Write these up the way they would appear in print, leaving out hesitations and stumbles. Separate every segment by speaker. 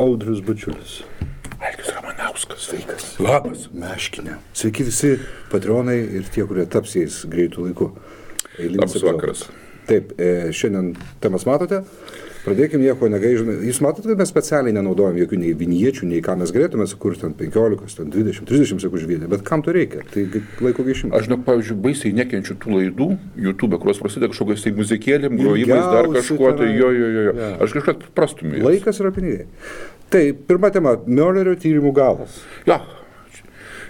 Speaker 1: Audrius Bačiulis.
Speaker 2: Algis Ramanauskas.
Speaker 1: Sveikas.
Speaker 2: Labas.
Speaker 1: Meškinė. Sveiki visi patronai ir tie, kurie taps jais greitų laiku.
Speaker 2: Labas vakaras.
Speaker 1: Taip, šiandien temas matote. Pradėkime nieko negaižome. Jūs matote, kad mes specialiai nenaudojam jokių nei viniečių, nei ką mes galėtume sukurti ant 15, 20, 30 sekundžių vieną. Bet kam to reikia? Tai laiko gaišimas.
Speaker 2: Aš, pavyzdžiui, baisiai nekenčiu tų laidų YouTube, kurios prasideda kažkokiais tai muzikėlėm, grojimais, dar kažkuo, tai jo. Ja. Aš kažką prastumiu.
Speaker 1: Laikas yra pinigai. Tai pirma tema – Muellerio tyrimų galas.
Speaker 2: Ja.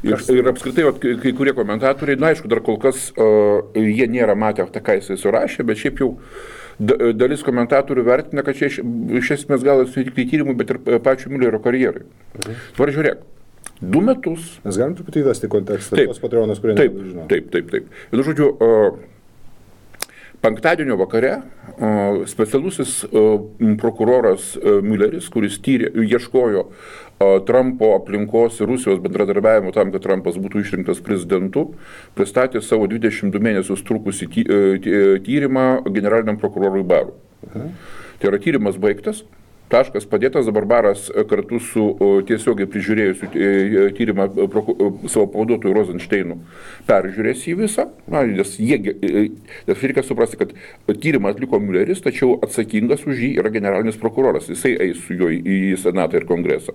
Speaker 2: Ir apskritai, kai kurie komentatoriai, aišku, dar kol kas jie nėra matę, ką jisai surašė, bet šiaip jau dalis komentatorių vertina, kad čia iš esmės gal tik tai tyrimų, bet ir pačių Muellerio karjerai. Dabar žiūrėk, 2 metus.
Speaker 1: Mes galim truputį įvesti kontekstą, tos patreonas, kurie nežino.
Speaker 2: Taip. Ir žodžiu, penktadienio vakare specialusis prokuroras Muelleris, kuris ieškojo Trumpo aplinkos ir Rusijos bendradarbiavimo tam, kad Trumpas būtų išrinktas prezidentu, pristatė savo 22 mėnesius trukusį tyrimą generaliniam prokurorui Barui. Tai yra tyrimas baigtas, taškas padėtas, dabar Baras kartu su tiesiogiai prižiūrėjusiu tyrimą savo pavaduotoju Rosensteinu peržiūrės jį visą, nes reikia suprasti, kad tyrimą atliko Muelleris, tačiau atsakingas už jį yra generalinis prokuroras, jisai eis su juo į Senatą ir Kongresą.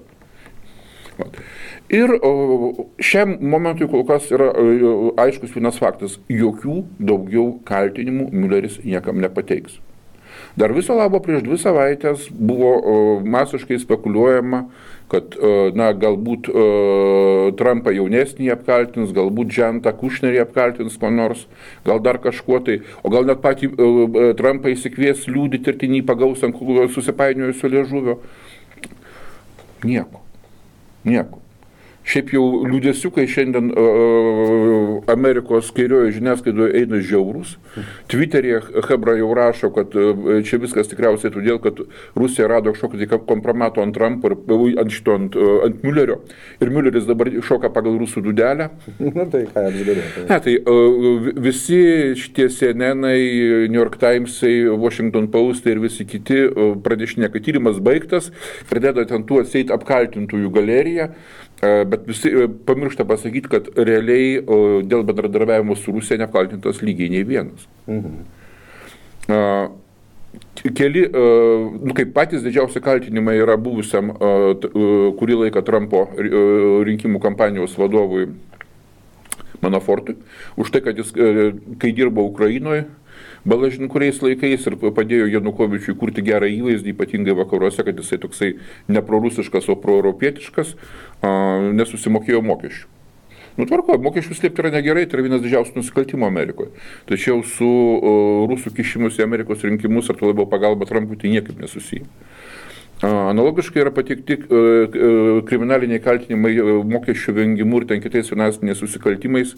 Speaker 2: Ir šiam momentui kol kas yra aiškus vienas faktas, jokių daugiau kaltinimų Muelleris niekam nepateiks. Dar viso labo prieš 2 savaitės buvo masiškai spekuliuojama, kad galbūt Trumpą jaunesnį apkaltins, galbūt Džentą Kušnerį apkaltins ko nors, gal dar kažkuo tai, o gal net patį Trumpą įsikvies liūdyti ir tinį pagaus ant susipainiojusio liežuvio. Nieko. Šiaip jau liūdėsiukai šiandien Amerikos kairioje žiniasklaidoje eina žiaurus. Twitter'e Hebra jau rašo, kad čia viskas tikriausiai todėl, kad Rusija rado kažkokį kompromato ant Trumpo ir ant Muellerio. Ir Muelleris dabar šoka pagal rusų dūdelę.
Speaker 1: Na tai ką apsidarė?
Speaker 2: Ne, tai visi šitie CNN-ai, New York Times'ai, Washington Post'ai ir visi kiti pradėšinė, kad tyrimas baigtas, pradeda ten tų atseit apkaltintųjų galeriją. Bet visi pamiršta pasakyti, kad realiai dėl bendradarbiavimo su Rusija neapkaltintas lygiai nei vienas. Keli, kaip patys didžiausi kaltinimai yra buvusiam kurį laiką Trumpo rinkimų kampanijos vadovui Manafortui, už tai, kad jis, kai dirbo Ukrainoje, balažin kuriais laikais ir padėjo Janukovičiui kurti gerą įvaizdį, ypatingai vakaruose, kad jisai toksai ne prorusiškas, o proeuropietiškas, nesusimokėjo mokesčių. Tvarko, mokesčių slėpti yra negerai, tai yra vienas didžiausių nusikaltimų Amerikoje. Tačiau su rusų kišimus į Amerikos rinkimus ar to labiau pagalba Trumpui tai niekaip nesusiję. Analogiškai yra pateikti kriminaliniai kaltinimai mokesčių vengimu ir ten kitais finansiniais susikaltimais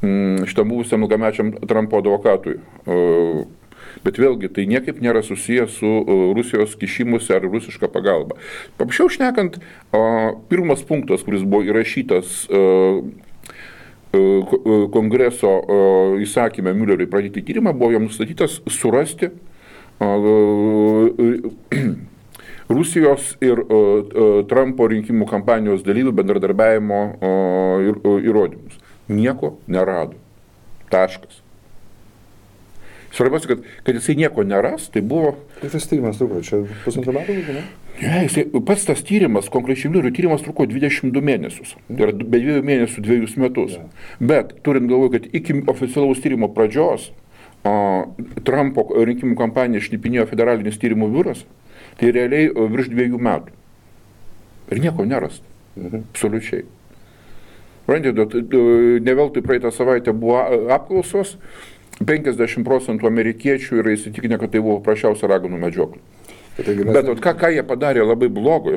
Speaker 2: šitam buvusiam ilgamečiam Trumpo advokatui. Bet vėlgi, tai niekaip nėra susijęs su Rusijos kišimusi ar rusiška pagalba. Paprasčiau šnekant, pirmas punktas, kuris buvo įrašytas Kongreso įsakyme Muelleriui pradėti tyrimą, buvo jam nustatytas surasti Rusijos ir Trumpo rinkimų kampanijos dalyvių bendradarbiavimo įrodymus. Nieko nerado. Taškas. Svarbiausia, kad jisai nieko neras, tai buvo...
Speaker 1: Tai tas tyrimas truko, čia 1,5 metų, ne?
Speaker 2: Ne, pats tas tyrimas, konkrečiai Muellerio tyrimas truko 22 mėnesius. Tai yra be 2 mėnesių 2 metus. Ja. Bet turint galvoje, kad iki oficialaus tyrimo pradžios Trumpo rinkimų kampaniją šnipinėjo federalinis tyrimų biuras, tai realiai virš 2 metų. Ir nieko nerasta. Absoliučiai. Ne veltui praeitą savaitę buvo apklausos, 50% amerikiečių yra įsitikinę, kad tai buvo prašiausia raganų medžioklė. Bet ką jie padarė labai blogo,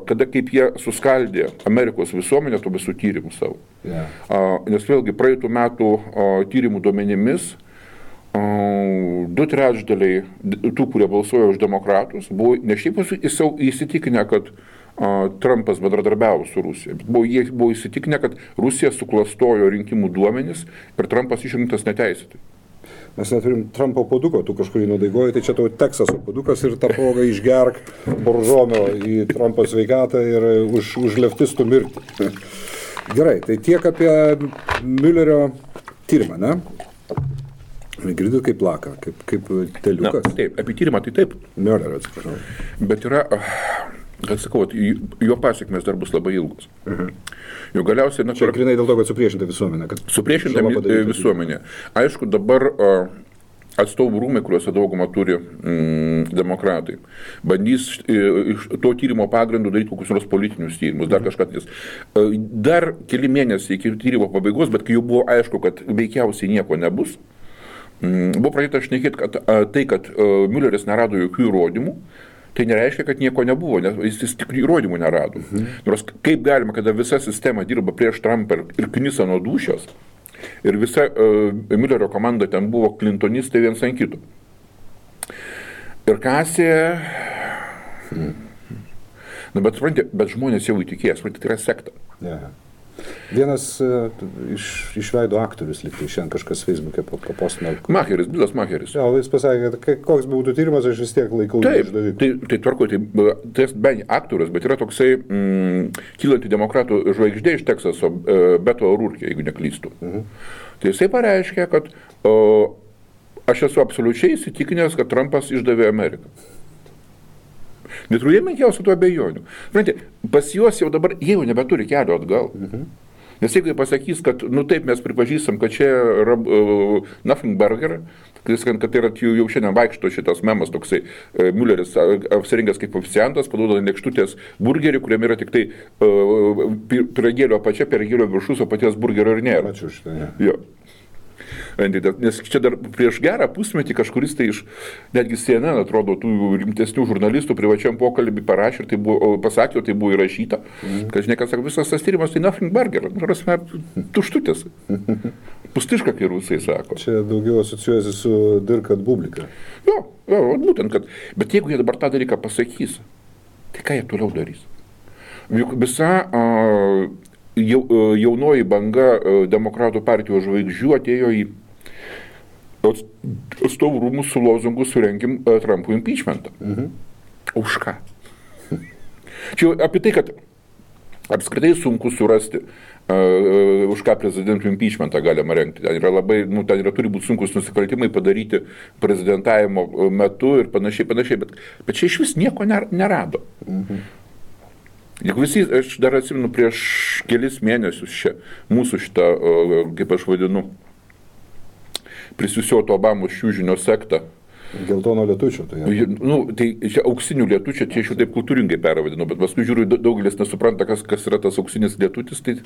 Speaker 2: kada kaip jie suskaldė Amerikos visuomenę tų visų tyrimų savo. Yeah. Nes vėlgi praeitų metų tyrimų duomenimis 2/3 tų, kurie balsuoja už demokratus, buvo ne šiaip įsitikinę, kad Trumpas bendradarbiavo su Rusija, bet jie buvo įsitikinę, kad Rusija suklastojo rinkimų duomenis ir Trumpas išrinktas neteisėtai.
Speaker 1: Mes neturim Trumpo puoduko, tu kažkurį nudaigoji, tai čia tau Teksaso puodukas ir tą progą išgerk boržomio į Trumpo sveikatą ir už leftistų mirtį. Gerai, tai tiek apie Müllerio tyrimą, ne? Girdit kaip plaka, kaip teliukas.
Speaker 2: Na, taip, apie tyrimą tai taip.
Speaker 1: Müllerio, atsiprašau.
Speaker 2: Bet yra, kad sakau, jo pasiekmes dar bus labai ilgus. Jau galiausiai...
Speaker 1: Čia grinai dėl to, kad supriešinta visuomenė.
Speaker 2: Supriešinta visuomenė. Aišku, dabar atstovų rūmai, kuriuose daugumą turi demokratai, bandys iš to tyrimo pagrindų daryti kokius nors politinius tyrimus, dar kažką. Dar keli mėnesiai iki tyrimo pabaigos, bet kai jau buvo aišku, kad veikiausiai nieko nebus, buvo pradėta šnekėti, kad tai, kad Mülleris nerado jokių įrodymų, tai nereiškia, kad nieko nebuvo, nes jis tik įrodymų nerado. Nors kaip galima, kada visa sistema dirba prieš Trumpą ir knisa nuo dūšios, ir visa Müllerio komanda ten buvo klintonistai viens ant kito. Ir kasė... Na, bet žmonės jau įtikės, tai yra sekta.
Speaker 1: Yeah. Vienas iš veido aktorius liktai, šiandien kažkas Facebook'e papostino.
Speaker 2: Macheris, Bilas Macheris.
Speaker 1: Ja, jis pasakė, kad koks būtų tyrimas, aš vis tiek laikau
Speaker 2: išdaviku. Tai tvarko, tai bent aktorius, bet yra toksai kylanti demokratų žvaigždė iš Teksaso, Beto O'Rourke, jeigu neklystu. Tai jisai pareiškia, kad aš esu absoliučiai įsitikinęs, kad Trumpas išdavė Ameriką. Neturėjai menkiausių tų abejonių. Pas juos jau dabar jie jau nebeturi kelio atgal. Nes jeigu jie pasakys, kad, nu taip, mes pripažįstam, kad čia yra nothing burger, kad tai yra jau šiandien vaikšto šitas memas toksai, Mülleris apsirengęs kaip oficiantas, paduoda lėkštutės burgerį, kuriame yra tik tai pyragėlio apačia, pyragėlio viršus, o paties burgerio ir nėra.
Speaker 1: Ačiū šitą, ne.
Speaker 2: Jo. Nes čia dar prieš gerą pusmetį kažkuris tai iš, netgi CNN, atrodo, tų rimtesnių žurnalistų privačiam pokalbį parašė, tai buvo, pasakė, tai buvo įrašyta, kad žinai, kad sako, visas tas tyrimas tai nothing burger, tuštutės, pustiška, kai rusai sako.
Speaker 1: Čia daugiau asociuojasi su Dirk at Publika.
Speaker 2: Jo, būtent, kad, bet jeigu jie dabar tą dalyką pasakys, tai ką jie toliau darys? Juk visa... jaunoji banga demokratų partijos žvaigždžių atėjo į atstovų rūmus su lozungu surengim Trumpų impeachmentą. Už ką? Čia apie tai, kad apskritai sunku surasti, už ką prezidentų impeachmentą galima rengti. Ten yra labai, ten turi būti sunkus nusikaltimai padaryti prezidentavimo metu ir panašiai, bet čia iš vis nieko nerado. Juk visi, aš dar atsimenu prieš kelis mėnesius čia, mūsų šitą, kaip aš vadinu, prisiusioto Obamos šiūžinio sektą.
Speaker 1: Geltono lietučio, tai jau.
Speaker 2: Tai čia auksinių lietučio, čia aš jau taip kultūringai pervadinu, bet paskui žiūriu, daugelis nesupranta, kas yra tas auksinis lietutis. Tai...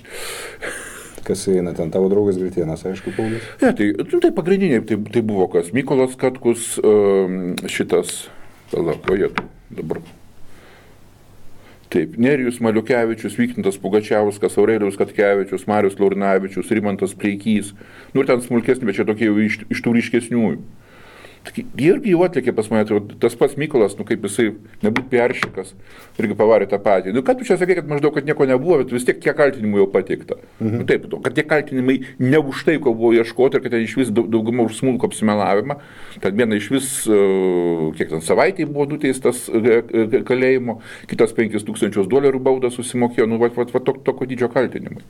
Speaker 1: Kas eina ten, tavo draugas Gritėnas, aišku, Paulius?
Speaker 2: Ne, tai pagrindiniai, tai buvo kas, Mykolas Katkus, šitas, dabar. Taip, Nerijus Maliukevičius, Vykintas Pugačiauskas, Aurelijus Katkevičius, Marius Laurinavičius, Rimantas Pleikys, ir ten smulkesni, bet čia tokie jau iš tų ryškesniųjų. Jie irgi jau atlikė pas mane, tas pats Mykolas, kaip jisai nebūt peršikas, irgi pavarė tą patį. Ką tu čia sakai, kad maždaug, kad nieko nebuvo, bet vis tiek kiek kaltinimų jau pateikta. Taip, kad tie kaltinimai ne už tai, ko buvo ieškoti, ir kad ten iš vis dauguma už smulkų apsimelavimą. Tad viena iš vis, kiek ten savaitėje buvo nuteistas kalėjimo, kitas $5,000 baudą susimokėjo, tokio dydžio kaltinimai.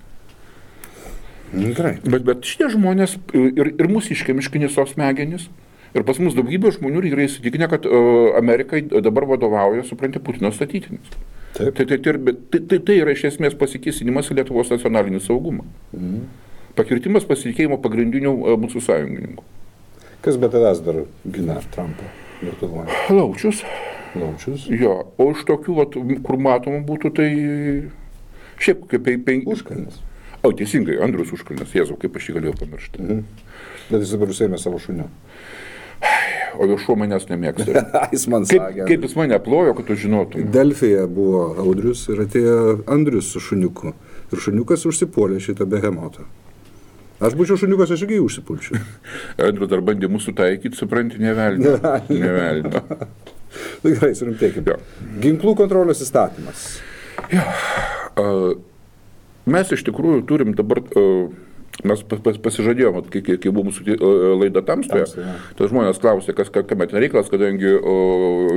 Speaker 1: Gerai.
Speaker 2: Bet šitie žmonės ir mūsiškai miškinisos smegenys. Ir pas mus daugybė žmonių yra įsitikinę, kad Amerikai dabar vadovauja, supranti, Putino statytinis. Tai yra iš esmės pasikėsinimas į Lietuvos nacionalinį saugumą. Pakirtimas pasitikėjimo pagrindinių mūsų sąjungininkų.
Speaker 1: Kas be tavęs dar gina Trumpą Lietuvoje?
Speaker 2: Laučius. Jo, o iš tokių, kur matomų būtų, tai šiaip kaip
Speaker 1: Užkalnis.
Speaker 2: O, teisingai, Andrius Užkalnis, Jėzau, kaip aš jį galėjau pamiršti.
Speaker 1: Bet jis dabar užsiėmė savo šuniu.
Speaker 2: O jo šuo manęs nemėgsta.
Speaker 1: Jis man sakė.
Speaker 2: Kaip jis mane plojo, kad tu žinotum.
Speaker 1: Delfyje buvo Audrius ir atėjo Andrius su šuniuku. Ir šuniukas užsipuolė šitą behemotą. Aš būčiau šuniukas, aš irgi užsipulčiau.
Speaker 2: Andrius dar bandė mūsų taikyti, supranti, nevelnio.
Speaker 1: Gerai, surimtėkime. Ginklų kontrolės įstatymas.
Speaker 2: Mes iš tikrųjų turim dabar Mes pasižadėjome, kai buvo mūsų laida Tamstoje, tas žmonės klausė, kame ten reikalas, kadangi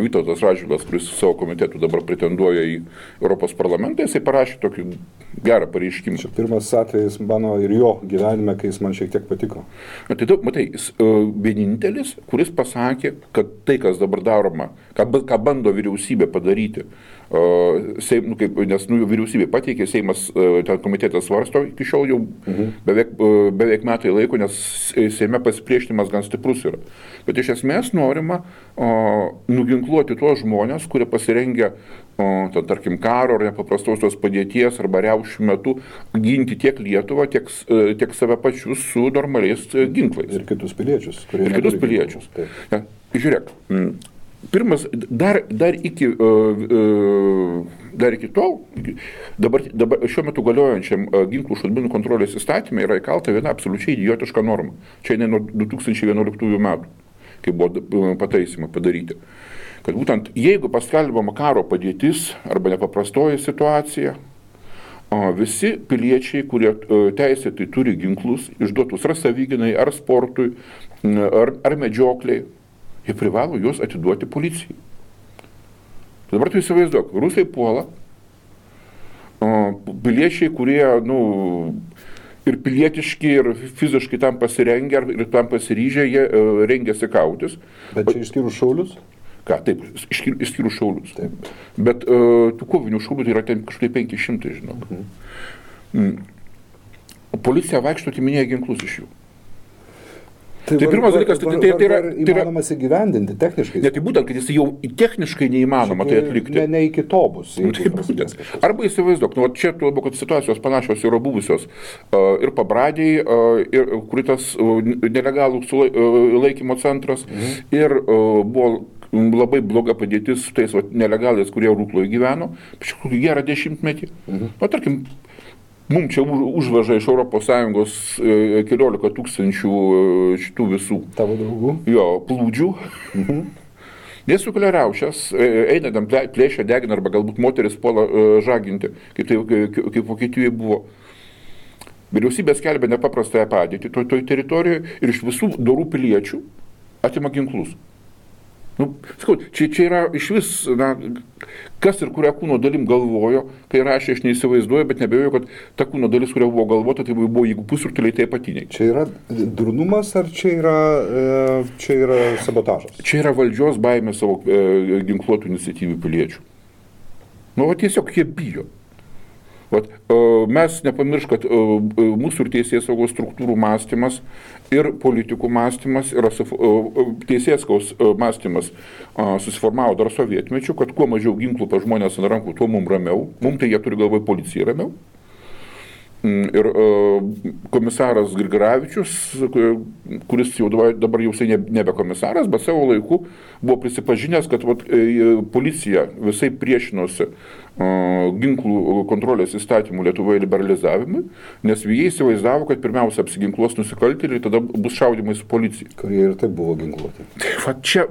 Speaker 2: Vytautas Radžvilas, kuris savo komitetų dabar pretenduoja į Europos parlamentą, jisai parašė tokį gerą pareiškimą.
Speaker 1: Čia pirmas atvejis mano ir jo gyvenime, kai jis man šiek tiek patiko.
Speaker 2: Tai matai, jis vienintelis, kuris pasakė, kad tai, kas dabar daroma, ką bando vyriausybė padaryti, nes vyriausybė pateikė, Seimas, ten komitetas svarsto iki šiol jau beveik metai laiko, nes Seime pasipriešinimas gan stiprus yra. Bet iš esmės norima nuginkluoti tuos žmonės, kurie pasirengia, tarkim, karo ar nepaprastosios padėties arba riaušių metu ginti tiek Lietuvą, tiek save pačius su normaliais ginklais.
Speaker 1: Ir kitus piliečius.
Speaker 2: Ir kitus piliečius. Ja, žiūrėk. Pirmas, dar iki tol, dabar šiuo metu galiojančiam ginklų šaudmenų kontrolės įstatymė yra įkalta viena absoliučiai idiotiška norma. Čia ne nuo 2011 metų, kai buvo pataisymai padaryti. Kad būtent jeigu paskelbama karo padėtis arba nepaprastoji situacija, visi piliečiai, kurie teisėtai turi ginklus, išduotus ar savigynai, ar sportui, ar medžiokliai, jie privalo juos atiduoti policijai. Dabar tu įsivaizduok, rusai puola, piliečiai, kurie, ir pilietiški, ir fiziškai tam pasirengę, ir tam pasiryžę, jie rengiasi kautis.
Speaker 1: Bet čia išskyrus šaulius?
Speaker 2: Ką, taip, išskyrus šaulius. Taip. Bet tų kovinių šaulių tai yra ten kažkaip 500, žinok. Policija vaikšto atiminėja ginklus iš jų. Tai pirmas dalykas, tai yra
Speaker 1: įmanomas įgyvendinti techniškai.
Speaker 2: Ne, tai būtent, kad jis jau techniškai neįmanoma tai atlikti.
Speaker 1: Ne iki to bus.
Speaker 2: Arba įsivaizduok, čia tu labiau, kad situacijos panašios yra buvusios ir Pabradėj, kur tas nelegalų laikymo centras, ir buvo labai bloga padėtis su tais nelegalais, kurie Rukloje gyveno, gerą 10-metį. Tarkim, mums čia užveža iš ES 14 tūkstančių šitų visų.
Speaker 1: Tavo draugų?
Speaker 2: Jo, plūdžių. Jie sukelia riaušes, eina tam plėšia, degina, arba galbūt moteris puola žaginti, kaip Vokietijoje buvo. Vyriausybė skelbia nepaprastąją padėtį toj teritorijoje ir iš visų dorų piliečių atima ginklus. Sakau, čia yra iš vis, kas ir kurią kūno dalim galvojo, kai rašė, aš neįsivaizduoju, bet nebejoju, kad ta kūno dalis, kuria buvo galvota, tai buvo jeigu pusrutuliai, tai apatiniai.
Speaker 1: Čia yra durnumas ar čia yra sabotažas?
Speaker 2: Čia yra valdžios baimė savo ginkluotų iniciatyvių piliečių. Tiesiog jie bijo. Mes nepamiršk, kad mūsų ir teisėsaugos struktūrų mąstymas ir politikų mąstymas yra teisėsaugos mąstymas susiformavo dar sovietmečiu, kad kuo mažiau ginklų pa žmonės ant rankų, tuo mums ramiau. Mums tai jie turi galvoje policijai ramiau. Ir komisaras Grigaravičius, kuris jau dabar jau nebe komisaras, bet savo laiku buvo prisipažinęs, kad policija visai priešinosi ginklų kontrolės įstatymų Lietuvoje liberalizavimui, nes jie įsivaizdavo, kad pirmiausia apsiginkluos nusikaltėliai ir tada bus šaudymai su policija.
Speaker 1: Kurie ir taip buvo ginkluoti.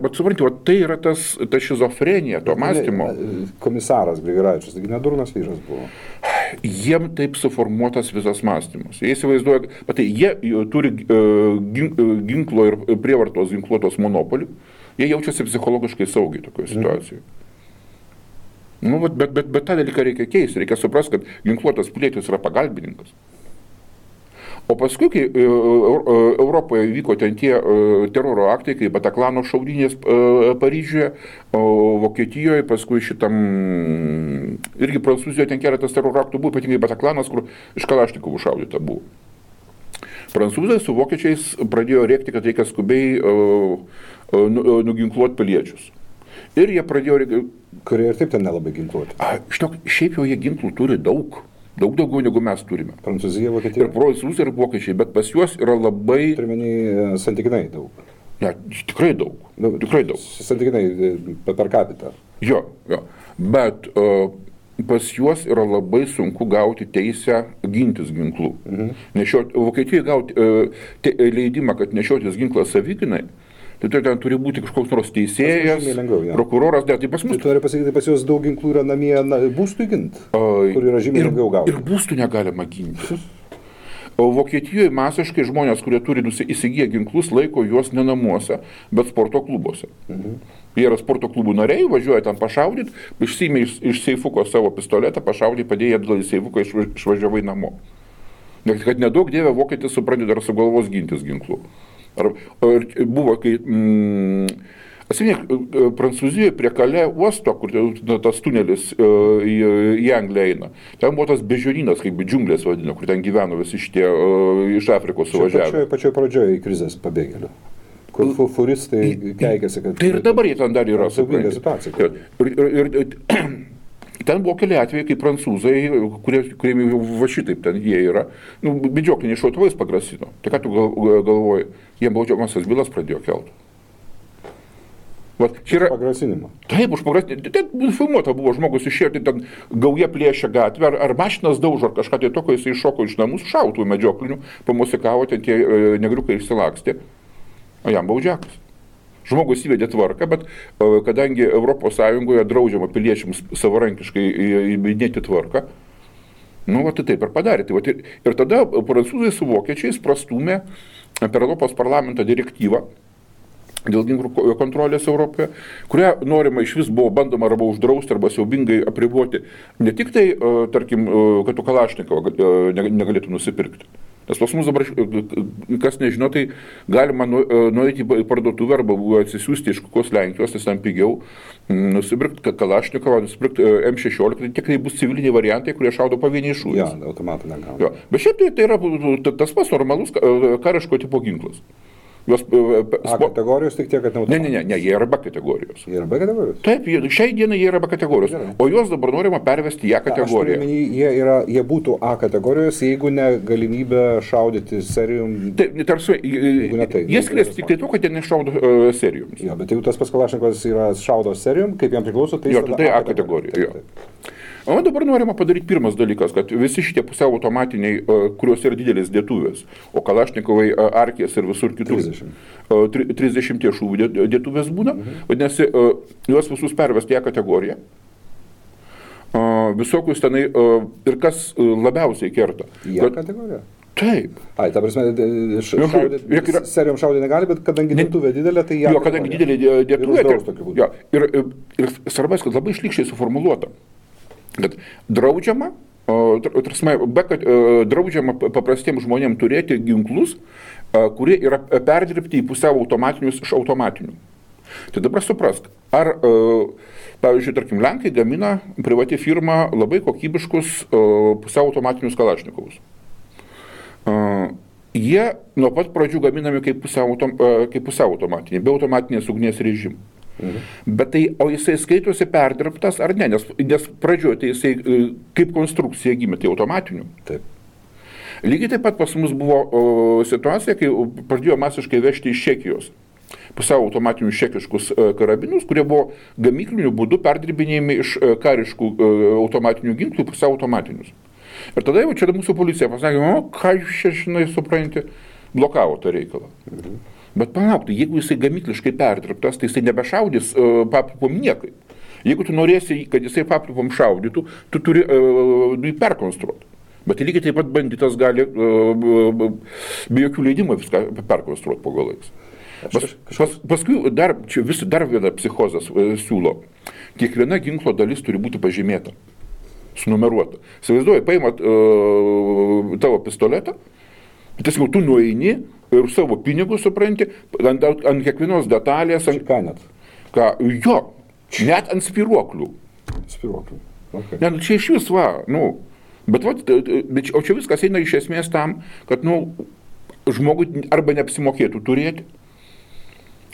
Speaker 2: Bet supranti, tai yra ta šizofrenija to mąstymo.
Speaker 1: Komisaras Grigaravičius, taigi nedurnas vyras buvo.
Speaker 2: Jiem taip suformuotas visas mąstymas. Jie įsivaizduoja, jie turi ginklo ir prievartos ginkluotos monopolį, jie jaučiasi psichologiškai saugiai tokioje situacijoje. Bet tą dalyką reikia keisti, reikia suprasti, kad ginkluotas pilietis yra pagalbininkas. O paskui, kai Europoje vyko ten tie teroro aktai, kaip Bataklano šaudynės Paryžiuje, Vokietijoje, paskui šitam, irgi Prancūzijoje ten keletas teroro aktų buvo, ypatingai Bataklanas, kur iš Kalašnikovų šaudyta buvo. Prancūzai su vokiečiais pradėjo rėkti, kad reikia skubiai nuginkluoti piliečius. Ir jie pradėjo...
Speaker 1: Kurie ir taip ten nelabai ginkluoti.
Speaker 2: Šiaip jau jie ginklų turi daug daugiau negu mes turime.
Speaker 1: Prancūzija, Vokietija.
Speaker 2: Ir prancūzai, ir vokiečiai, bet pas juos yra labai...
Speaker 1: Turime santykinai daug.
Speaker 2: Ne, tikrai daug. Tikrai daug.
Speaker 1: Santykinai per capita.
Speaker 2: Jo. Bet pas juos yra labai sunku gauti teisę gintis ginklų. Vokietijoje gauti leidimą, kad nešiotis ginklą savigynai, tai ten turi būti kažkoks nors teisėjas, prokuroras, tai pas mus...
Speaker 1: Tai turi pasakyti, pas juos daug ginklų yra namie būstui ginti, kur yra žymiai lengviau gauti.
Speaker 2: Ir būstų negalima ginti. O Vokietijoje masiškai žmonės, kurie turi įsigiję ginklus, laiko juos ne namuose, bet sporto klubuose. Jie yra sporto klubų nariai, važiuoja ten pašaudyti, išsiėmė iš seifuko savo pistoletą, pašaudė, padėjo atgal į seifuką, išvažiavai namo. Kad nedaug dievė vokietis supranti dar sugalvos gintis ginklų. Buvo, kai... Atsimink, Prancūzijoje prie Kalė uosto, kur tas tunelis į Angliją eina, ten buvo tas bežiorynas, kaip džiunglės vadino, kur ten gyveno visi šitie iš Afrikos suvažiavę.
Speaker 1: Pačioje pradžioje į krizės pabėgėlių, kur furistai keikėsi, kad...
Speaker 2: Tai ir dabar jie ten dar yra.
Speaker 1: Siaubinga situacija.
Speaker 2: Ir ten buvo keli atvejai, kai prancūzai, kuriem va šitaip ten jie yra, medžiokliniais šautuvais pagrasino. Tai ką tu galvoji, jie baudžiamąsias bylas pradėjo kelti.
Speaker 1: Pagrasinimą.
Speaker 2: Taip, už pagrasinimą. Ten filmuota buvo, žmogus išėjo, tai ten gauja plėšia gatvę, ar mašinas daužo, ar kažką tai tokio, jis iššoko iš namus, šautų medžioklinių, pamusikavo, ten tie negriukai išsilakstė, o jam baudžiakas. Žmogus įvedė tvarką, bet kadangi ES draudžiama piliečiams savarankiškai įvedinėti tvarką, tai taip ir padarė. Ir tada prancūzai su vokiečiais prastūmė per Europos parlamento direktyvą dėl ginklų kontrolės Europoje, kurią norima iš vis buvo bandoma arba uždrausti, arba siaubingai apriboti. Ne tik tai, tarkim, kad tu Kalašnikovą negalėtų nusipirkti. Nes pas mus dabar, kas nežino, tai galima nueiti į parduotuvę arba atsisiųsti iš kokios Lenkijos, tai ten pigiau, nusipirkti Kalašnikovą, nusipirkti M16, tai tik tai bus civiliniai variantai, kurie šaudo pavieniai šūviais.
Speaker 1: Ja, automatų negauna.
Speaker 2: Bet šiaip tai yra tas pats normalus kariško tipo ginklas.
Speaker 1: A kategorijos tik tiek, kad neautomatų.
Speaker 2: Ne, jie yra B kategorijos.
Speaker 1: Jie yra B kategorijos?
Speaker 2: Taip, šiai dienai jie yra B kategorijos, o juos dabar norima pervesti į A kategoriją.
Speaker 1: Jie būtų A kategorijos, jeigu ne galimybė šaudyti serijum.
Speaker 2: Taip, tarsi, jie skiriasi tik tai to, kad jie nešaudo serijums.
Speaker 1: Jo, bet jeigu tas pats Kalašnikovas yra šaudo serijum, kaip jam priklauso, tai
Speaker 2: jis tada A kategorija. O dabar norima padaryti pirmas dalykas, kad visi šitie pusiau automatiniai, kurios yra didelis dėtuvės, o Kalašnikovai, Arkės ir visur kitur 30 šūvių dėtuvės būna, vadinasi, juos visus pervesti į kategoriją. Visokius tenai, ir kas labiausiai kerta.
Speaker 1: Į kategoriją?
Speaker 2: Taip.
Speaker 1: Ai, ta prasme, serijom šaudyti negali, bet kadangi dėtuvė didelė, tai
Speaker 2: jo, kadangi didelė dėtuvė, ir svarbas, kad labai šlykščiai suformuluota. Kad draudžiama, draudžiama paprastiems žmonėms turėti ginklus, kurie yra perdirbti į pusiau automatinius iš automatinių. Tai dabar suprask, ar, pavyzdžiui, tarkim, Lenkai gamina privati firma labai kokybiškus pusiau automatinius Kalašnikovus. Jie nuo pat pradžių gaminami kaip pusiau automatiniai, be automatinės ugnies režimų. Bet tai, o jisai skaitosi perdirbtas ar ne, nes pradžioje tai jisai kaip konstrukcija gimė, tai automatinių.
Speaker 1: Taip.
Speaker 2: Lygiai taip pat pas mus buvo situacija, kai pradėjo masiškai vežti iš Čekijos pusiau automatinius čekiškus karabinus, kurie buvo gamykliniu būdu perdirbinėjami iš kariškų automatinių ginklų pusiau automatinius. Ir tada jau čia mūsų policija pasakė, ką jūs čia, žinai, supranti, blokavo tą reikalą. Bet palauk, tai jeigu jisai gamykliškai perdirbtas, tai jisai nebešaudys papripom niekai. Jeigu tu norėsi, kad jisai papripom šaudytų, tu turi jį perkonstruoti. Bet lygiai taip pat banditas gali be jokių leidimų viską perkonstruoti po galais. Paskui dar viena psichozas siūlo. Kiekviena ginklo dalis turi būti pažymėta, sunumeruota. Įsivaizduoji, paimat tavo pistoletą, tiesiog tu nueini ir savo pinigus, supranti, ant kiekvienos detalės. Jo, net ant spiruoklių.
Speaker 1: Spiruoklių. Okay.
Speaker 2: Ne, čia iš vis bet o čia viskas eina iš esmės tam, kad žmogui arba neapsimokėtų turėti,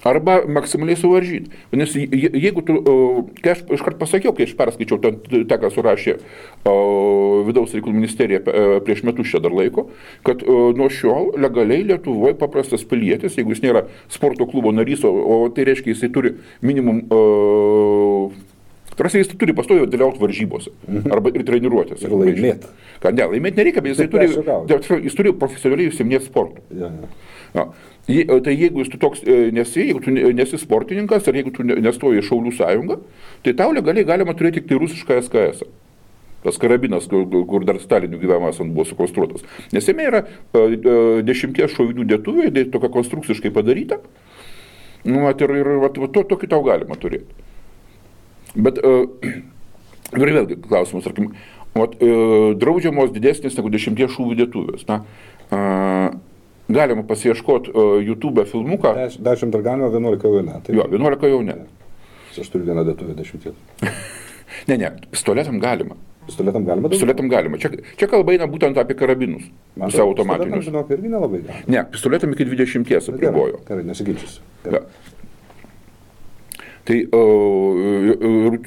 Speaker 2: arba maksimaliai suvaržyti. Nes jeigu tu, kai aš iškart pasakiau, kai aš perskaičiau tą, ką surašė Vidaus reikalų ministerija prieš metus čia dar laiko, kad nuo šiol legaliai Lietuvoje paprastas pilietis, jeigu jis nėra sporto klubo narys, o tai reiškia, jisai turi minimum, jis turi pastoviai dalyvauti varžybose, arba ir treniruotėse.
Speaker 1: Ir laimėti.
Speaker 2: Ne, laimėti nereikia, bet jis turi profesionaliai užsiiminėti sportu. Ja. Tai jeigu tu toks nesi, jeigu tu nesi sportininkas, ar jeigu tu nestoji į Šaulių sąjungą, tai tau legaliai galima turėti tik tai rusišką SKS. tas karabinas, kur dar Stalinių gyvenimas buvo sukonstruotas. Nes jame yra 10 šovinių dėtuvė, tokia konstrukciškai padaryta, tokį tau galima turėti. Bet ir vėlgi klausimus, tarkim, draudžiamos didesnės negu 10 šūvių dėtuvės. Galima pasiieškoti YouTube filmuką.
Speaker 1: 10 dar galima, 11 jau ne.
Speaker 2: Jo, 11 jau ne.
Speaker 1: Aš turiu vieną dėtuvę 10.
Speaker 2: Ne, pistoletam galima.
Speaker 1: Pistoletam galima?
Speaker 2: Pistoletam galima. Čia kalba eina būtent apie karabinus. Pusiau automatinius.
Speaker 1: Pistoletam, žinok, irgi nelabai galima.
Speaker 2: Ne, pistoletam iki 20 apribojo.
Speaker 1: Gerai, nesiginčysiu.
Speaker 2: Tai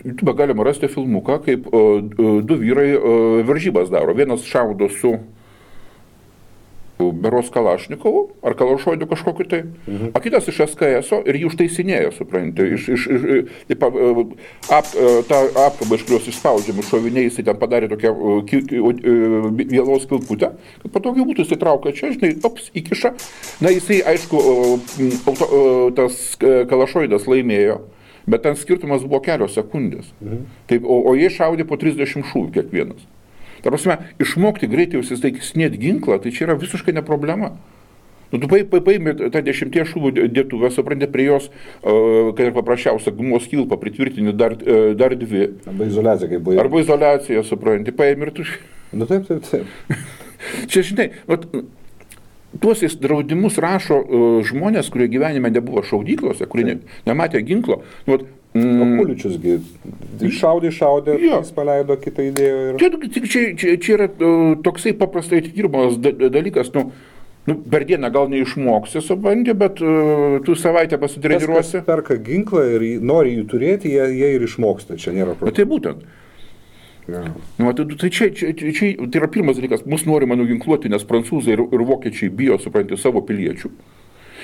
Speaker 2: YouTube galima rasti filmuką, kaip du vyrai varžybas daro. Vienas šaudo su beros Kalašnikovu, ar Kalašoidu kažkokiu tai, o kitas iš SKS-o ir jį užtaisinėjo, supranti, tą apkabą, iš kurios išspaudžiami šoviniai, jisai ten padarė tokią vėlaus kilputę, kad patogiai būtų jisai traukia čia, žinai, įkiša, jisai, aišku, tas Kalašoidas laimėjo, bet ten skirtumas buvo kelios sekundės, taip, o jie šaudė po 30 šūvių kiekvienas. Ta prasme, išmokti greitai užsistaikinėti ginklą, tai čia yra visiškai ne problema. Tu paimi tą 10 šūvių dėtuvę, supranti, prie jos, kad ir paprasčiausia gumos kilpą pritvirtini dar 2.
Speaker 1: Arba izoliacija, kaip buvo.
Speaker 2: Arba izoliacija, supranti, paimi ir tu...
Speaker 1: Taip.
Speaker 2: Čia, žinai, tuos draudimus rašo žmonės, kurie gyvenime nebuvo šaudyklose, kurie nematė ginklo.
Speaker 1: O Puličiusgi šaudė, jis paleido kitą idėją.
Speaker 2: Čia yra toksai paprastai atidirbamas dalykas, per dieną gal neišmoksi, supranti, bet tu savaitę pasitreniruosi.
Speaker 1: Kas perka ginklą ir nori jį turėti, jie ir išmoksta, čia nėra problema.
Speaker 2: Tai būtent. Tai tai yra pirmas dalykas, mus norima nuginkluoti, nes prancūzai ir vokiečiai bijo, supranti, savo piliečių.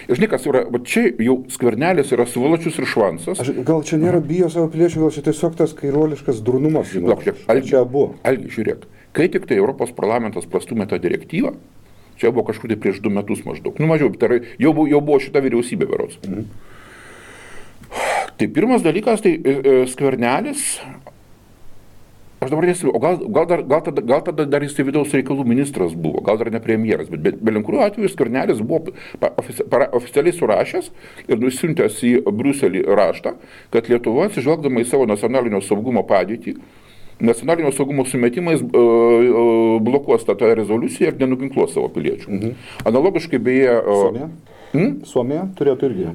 Speaker 2: Ir žinai, kas yra, čia jau Skvernelis yra svoločius ir švansas.
Speaker 1: Gal čia nėra bijo savo piliečių, gal čia tiesiog tas kairuoliškas drunumas. Čia abu.
Speaker 2: Algi, žiūrėk, kai tik tai Europos parlamentas prastumė tą direktyvą, čia buvo kažkur tai prieš 2 metus maždaug, mažiau, jau buvo šita vyriausybė berods. Tai pirmas dalykas, tai Skvernelis, aš dabar nesiu, o gal tada dar jis vidaus reikalų ministras buvo, gal dar ne premjeras, bet belinkuriuo atveju Skvernelis buvo oficialiai surašęs ir nusiuntęs į Briuselį raštą, kad Lietuva, atsižvelgdama į savo nacionalinio saugumo padėtį, nacionalinio saugumo sumetimais blokuos tą rezoliuciją ir nenuginkluos savo piliečių. Analogiškai beje...
Speaker 1: Suomija turėtų irgi.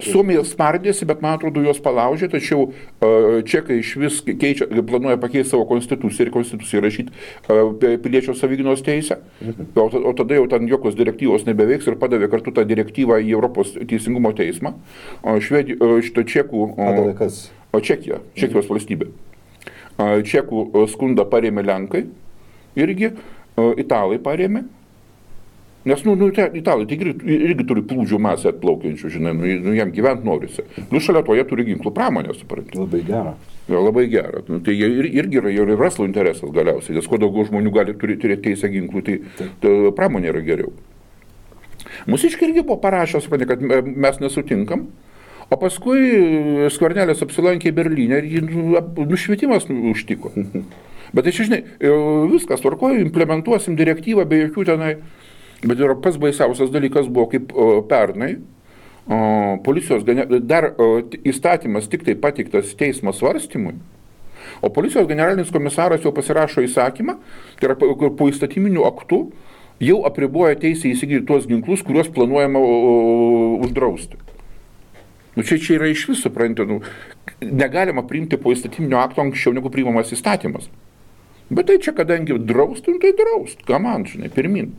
Speaker 2: Suomija spardėsi, bet man atrodo juos palaužė, tačiau čekai iš vis planuoja pakeisti savo konstituciją ir konstituciją rašyti piliečio savigynos teisę. O tada jau ten jokios direktyvos nebeveiks ir padavė kartu tą direktyvą į Europos teisingumo teismą. Šito čekų... Čekijos valstybė. Čekų skundą parėmė Lenkai, irgi Italai parėmė. Nes, Italai irgi turi plūdžių masę atplaukiančių, žinai, jam gyventi norisi. Šalia to jie turi ginklų pramonę, supranti.
Speaker 1: Labai gera.
Speaker 2: Labai gera. Tai irgi yra ir verslo interesas galiausiai, nes kuo daugiau žmonių gali turėti teisę ginklų, tai pramonė yra geriau. Mūsiškai irgi buvo parašęs, kad mes nesutinkam, o paskui Skvernelis apsilankė Berlyne ir jį nušvietimas užtiko. Bet tai čia, žinai, viskas tvarkoja, implementuosim direktyvą be jokių tenai. Bet ir pats baisiausias dalykas buvo, kaip pernai, policijos dar įstatymas tik tai pateiktas teismo svarstymui, o policijos generalinis komisaras jau pasirašo įsakymą, tai yra po įstatyminių aktų jau apriboja teisę įsigyti tuos ginklus, kuriuos planuojama uždrausti. Čia yra iš vis, supranti, negalima priimti po įstatyminio akto anksčiau negu priimamas įstatymas. Bet tai čia, kadangi draustum, tai draust, ką man, žinai, pirmin.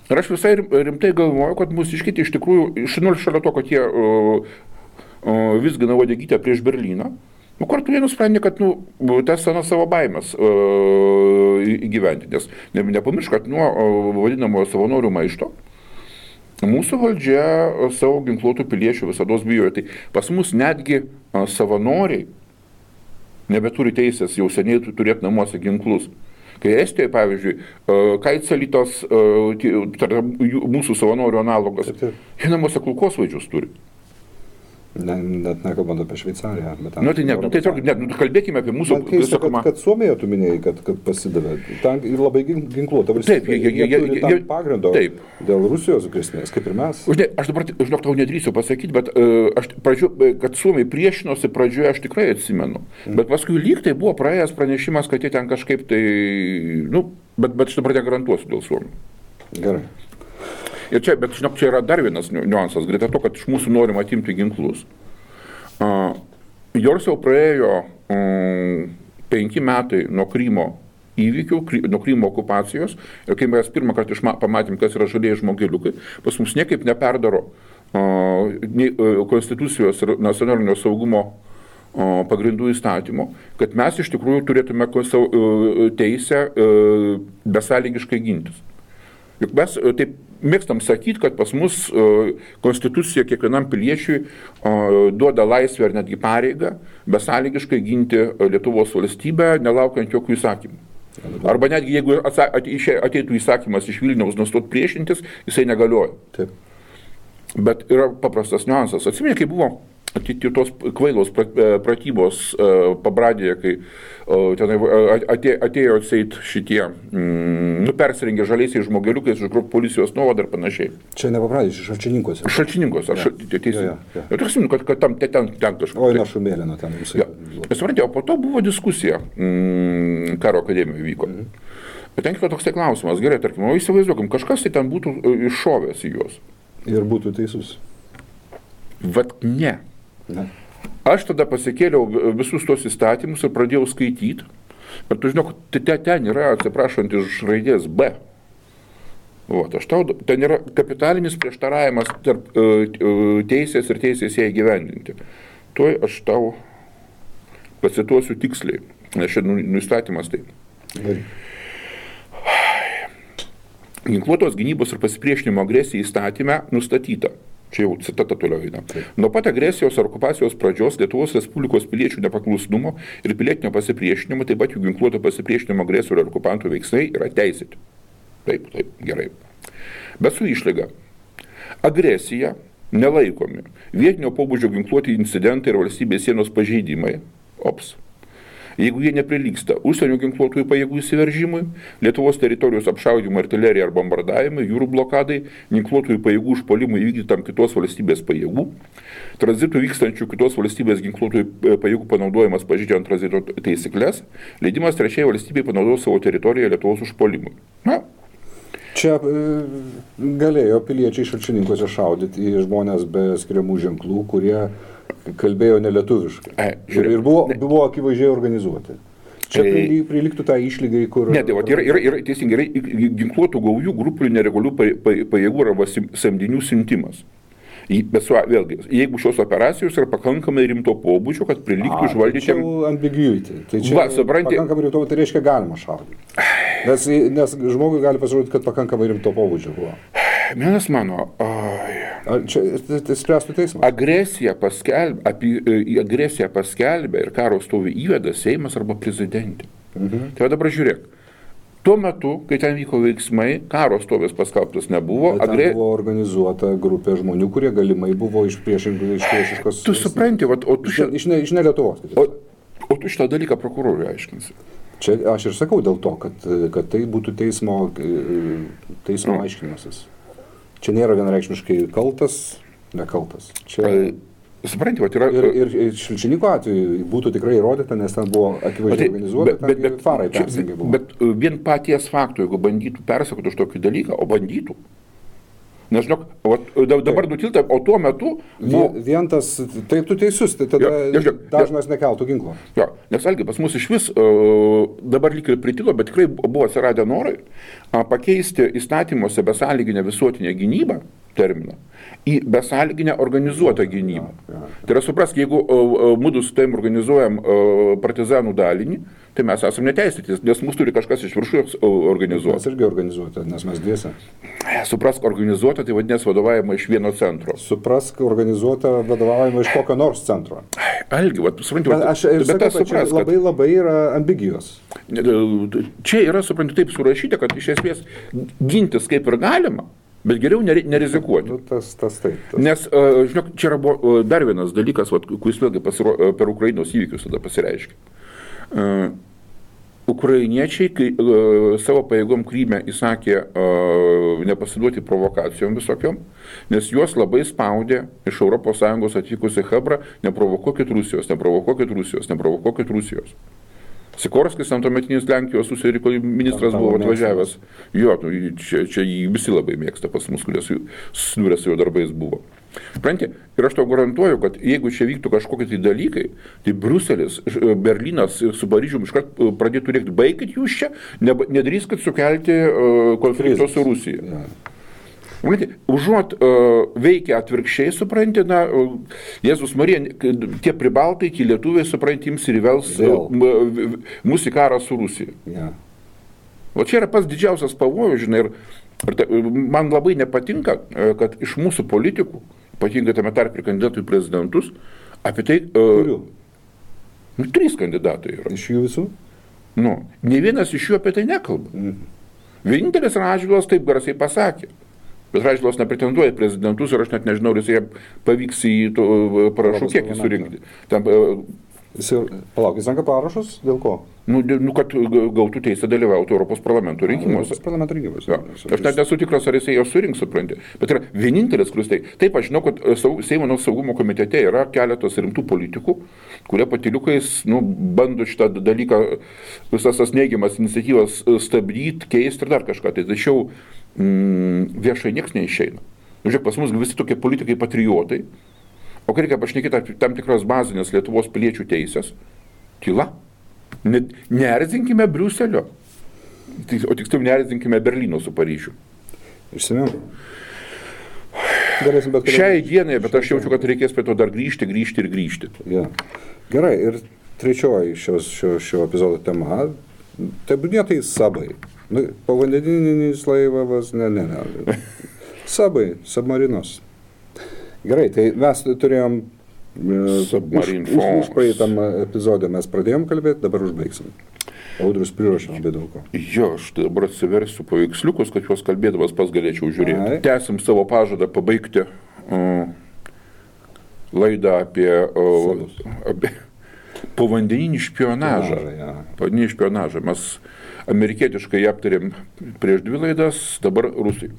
Speaker 2: Ir aš visai rimtai galvoju, kad mūsiškiai iš tikrųjų, šalia to, kad jie vizgina uodegytę prieš Berlyną, kartu jie nusprendė, kad tas savo baimės įgyventi, nes nepamiršk, kad nuo vadinamojo savanorių maišto mūsų valdžia savo ginkluotų piliečių visados bijojo. Tai pas mus netgi savanoriai nebeturi teisės jau seniai turėti namuose ginklus. Kai Estijoje, pavyzdžiui, Kaitselytos, mūsų savanorių analogas, jie namuose kulkosvaidžius turi.
Speaker 1: Net nekalbant apie Šveicariją.
Speaker 2: Kalbėkime apie mūsų...
Speaker 1: Man keista, kad Suomija, tu minėjai, kad pasidavė. Ten labai ginkluota valstybė.
Speaker 2: Taip,
Speaker 1: jie turi tam pagrindo
Speaker 2: taip.
Speaker 1: Dėl Rusijos grėsmės, kaip ir mes.
Speaker 2: Aš dabar, tau nedrįsiu pasakyti, bet kad Suomija priešinosi pradžioje, aš tikrai atsimenu. Bet paskui lyg tai buvo praėjęs pranešimas, kad jie ten kažkaip tai... Bet aš dabar negarantuosiu dėl Suomijų.
Speaker 1: Gerai.
Speaker 2: Ir čia yra dar vienas niuansas, greta to, kad iš mūsų norim atimti ginklus. Jors jau praėjo 5 metai nuo Krymo įvykių, nuo Krymo okupacijos, ir kai mes pirmą kartą pamatėm, kas yra žalieji žmogeliukai, pas mus niekaip neperdaro Konstitucijos ir nacionalinio saugumo pagrindų įstatymo, kad mes iš tikrųjų turėtume teisę besąlygiškai gintis. Juk mes taip mėgstam sakyti, kad pas mus Konstitucija kiekvienam piliečiui duoda laisvę ar netgi pareigą besąlygiškai ginti Lietuvos valstybę, nelaukiant jokių įsakymų. Arba netgi jeigu ateitų įsakymas iš Vilniaus nustot priešintis, jisai negalioja.
Speaker 1: Taip.
Speaker 2: Bet yra paprastas niuansas. Atsimeni, kai buvo tos kvailos pratybos Pabradėje, kai atėjo atseit šitie, persirengė žaliaisiais žmogeliukais iš policijos nuovadą ir panašiai.
Speaker 1: Čia ne Pabradėje, Šalčininkose.
Speaker 2: Šalčininkose, teisė. Ir atsimenu, kad ten kažkas.
Speaker 1: Oi, na Šumėlino ten visai.
Speaker 2: Suprantate, o po to buvo diskusija, karo akademijoje vyko. Bet ten kilo toks klausimas, gerai, tarkim, o įsivaizduokim, kažkas tai ten būtų iššovęs į juos.
Speaker 1: Ir būtų teisus.
Speaker 2: Vat ne. Aš tada pasikėliau visus tos įstatymus ir pradėjau skaityti. Bet tu žinok, ten yra, atsiprašant, iš raidės B. Ten yra kapitalinis prieštaravimas tarp teisės ir teisės ją įgyvendinti. Tuoj aš tau pacituosiu tiksliai, nes šiandien įstatymas taip. Ginkluotos gynybos ir pasipriešinimo agresijai įstatyme nustatyta. Čia jau citata toliau eina. Nuo pat agresijos ar okupacijos pradžios Lietuvos Respublikos piliečių nepaklusnumo ir pilietinio pasipriešinimo, taip pat jų ginkluoto pasipriešinimo agresorių ar okupantų veiksmai yra teisėti. Taip, gerai. Bet su išlyga. Agresija nelaikomi vietinio pobūdžio ginkluoti incidentai ir valstybės sienos pažeidimai. Jeigu jie neprilygsta užsienio ginkluotųjų pajėgų įsiveržimui, Lietuvos teritorijos apšaudymui, artilerijai ar bombardavimui, jūrų blokadai, ginkluotųjų pajėgų užpuolimui įvykdytam kitos valstybės pajėgų, tranzitų vykstančių kitos valstybės ginkluotųjų pajėgų panaudojimas pažeidžiant tranzito taisyklės, leidimas trečiai valstybei panaudoti savo teritoriją Lietuvos užpuolimui.
Speaker 1: Čia galėjo piliečiai Šalčininkose šaudyti į žmonės be skiriamų ženklų, kurie kalbėjo nelietuviškai. Ir buvo akivaizdžiai organizuoti. Čia priliktų tą išlygai, kur...
Speaker 2: Ne, tai yra teisingai, ginkluotų gaujų grupių neregalių pajėgų arba samdinių siuntimas. Bet vėlgi, jeigu šios operacijos yra pakankamai rimto pobūdžio, kad priliktų išvaldyti...
Speaker 1: Tai čia ambiguity. Tai čia pakankamai rimto, tai reiškia galima šaudyti. Nes žmogui gali pasirodyti, kad pakankamai rimto pobūdžio buvo.
Speaker 2: Vienas mano...
Speaker 1: Čia spręstų teismas.
Speaker 2: Agresiją paskelbė ir karo stovį įveda Seimas arba prezidentė. Tai dabar žiūrėk. Tuo metu, kai ten vyko veiksmai, karo stovės paskelbtas nebuvo.
Speaker 1: Ten buvo organizuota grupė žmonių, kurie galimai buvo iš priešiškos...
Speaker 2: Tu supranti,
Speaker 1: iš ne Lietuvos.
Speaker 2: O tu šitą dalyką prokurorui aiškinsi.
Speaker 1: Čia aš ir sakau dėl to, kad tai būtų teismo aiškinimasis. Čia nėra vienareikšmiškai kaltas, nekaltas.
Speaker 2: Supranti, yra...
Speaker 1: Ir Šalčininko atveju būtų tikrai įrodyta, nes ten buvo akivaizdžiai organizuota, ten farai persingai buvo.
Speaker 2: Bet vien paties faktų, jeigu bandytų persakoti už tokį dalyką, o bandytų. Nes, žinok, dabar nutilta, o tuo metu...
Speaker 1: Vien tas, tai tu teisus, tai tada dažnas nekeltų ginklo.
Speaker 2: Jo, nes algi pas mus iš vis dabar lyg ir pritilo, bet tikrai buvo atsiradę norai pakeisti įstatymuose besąlyginę visuotinę gynybą terminą į besąlyginę organizuotą gynybą. Tai yra suprask, jeigu mudu su tavim organizuojam partizanų dalinį, tai mes esame neteisėtis, nes mus turi kažkas iš viršų organizuoti.
Speaker 1: Mes irgi organizuota, nes mes dviese.
Speaker 2: Suprask, organizuota, tai vadinės vadovavimą iš vieno centro.
Speaker 1: Suprask, organizuota vadovavimą iš kokio nors centro.
Speaker 2: Algi, supranti,
Speaker 1: bet labai yra ambigijos.
Speaker 2: Čia yra, supranti, taip surašyta, kad iš esmės gintis kaip ir galima, Bet geriau nerizikuoti.
Speaker 1: Nu, tas taip.
Speaker 2: Nes, žinok, čia yra dar vienas dalykas, kuris vėlgi per Ukrainos įvykius tada pasireiškia. Ukrainiečiai, kai savo pajėgom Kryme įsakė nepasiduoti provokacijom visokiom, nes juos labai spaudė iš ES atvykusi Chebra, neprovokuokit Rusijos. Sikorskis, tuometinis Lenkijos užsienio reikalų ministras, buvo atvažiavęs. Jo, čia jį visi labai mėgsta pas mus, kurie susidūrė su jo darbais buvo. Pranti, ir aš tau garantuoju, kad jeigu čia vyktų kažkokie tai dalykai, tai Bruselis, Berlynas su Paryžium iškart pradėtų rėkti, baikit jūs čia, nedrįskit sukelti konflikto su Rusija.
Speaker 1: Ja.
Speaker 2: Užuot veikia atvirkščiai, supranti, Jėzus Marija, tie pribaltai, tie lietuviai, supranti, jums ir įvels mūsų į karą su Rusija.
Speaker 1: Ja.
Speaker 2: O čia yra pats didžiausias pavojus, žinai, ir man labai nepatinka, kad iš mūsų politikų, ypatingai tame tarp ir kandidatų į prezidentus, apie tai...
Speaker 1: Kurių?
Speaker 2: 3 kandidatai yra.
Speaker 1: Iš jų visų?
Speaker 2: Ne vienas iš jų apie tai nekalba. Vienintelis Radžvilas taip garsiai pasakė. Bet Radžvilas nepretenduoja į prezidentus ir aš net nežinau, ar jis pavyks į parašų kiekį surinkti.
Speaker 1: Palauk, jis renka parašus? Dėl ko?
Speaker 2: Kad gautų teisę dalyvauti Europos parlamento rinkimuose.
Speaker 1: Europos parlamento rinkimuose.
Speaker 2: Ja. Aš net nesu tikras, ar jisai jau surinks, supranti. Bet yra vienintelis, kuris tai. Taip, aš žinau, kad Seimo saugumo komitete yra keletas rimtų politikų, kurie patyliukais bando šitą dalyką, visas tas neigiamas iniciatyvas stabdyti, keisti ir dar kažką. Tai tačiau viešai nieks neišeina. Žiūrėk, pas mus visi tokie politikai patriotai, o kai reikia pašnekėti apie tam tikras bazinės Lietuvos piliečių teisės, tyla. Neerzinkime Briuselio, o tiksliau neerzinkime Berlyno su Paryžiu.
Speaker 1: Išsimiau.
Speaker 2: Šiai dienai, bet aš jaučiu, kad reikės prie to dar grįžti.
Speaker 1: Ja. Gerai, ir trečioji šio epizodo tema, tebūnietai sabai. Povandeninis laivas, ne. Sabai, submarinos. Gerai, tai mes turėjom už praeitam epizodą mes pradėjom kalbėti, dabar užbaigsim. Audrius priruošė labai daug ko.
Speaker 2: Jo, aš dabar atsiversiu paveiksliukus, kad juos kalbėdamas pas galėčiau žiūrėti. Tęsim savo pažadą pabaigti laidą apie povandeninį špionažą. Povandeninį špionažą. Mes amerikietiškai aptarėm prieš 2 laidas, dabar rusai.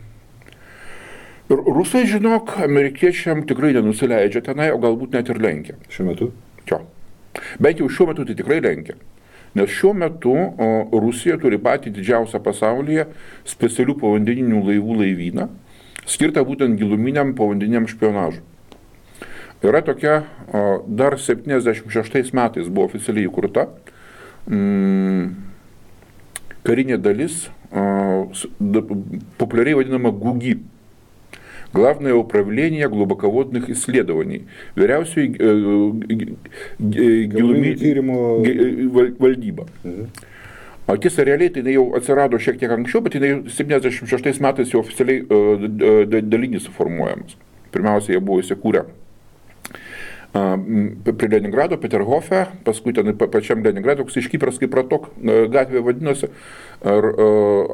Speaker 2: Ir rusai, žinok, amerikiečiam tikrai nenusileidžia tenai, o galbūt net ir lenkia.
Speaker 1: Šiuo metu?
Speaker 2: Jo. Bent jau šiuo metu tai tikrai lenkia. Nes šiuo metu Rusija turi patį didžiausią pasaulyje specialių povandeninių laivų laivyną, skirtą būtent giluminiam povandeniniam špionažui. Yra tokia, dar 76 metais buvo oficialiai įkurta karinė dalis, populiariai vadinama ГУГИ. Главное управление глубоководных исследований. Vyriausioji valdyba. O tiesa, realiai tai jau atsirado šiek tiek anksčiau, bet jinai 76 metais jau oficialiai dalinį suformuojamas. Pirmiausia, jie buvo įsikūrę prie Leningrado, Peterhofe, paskui ten pačiam Leningrado, toks iškypras kaip Ratok gatvė vadinosi. Ir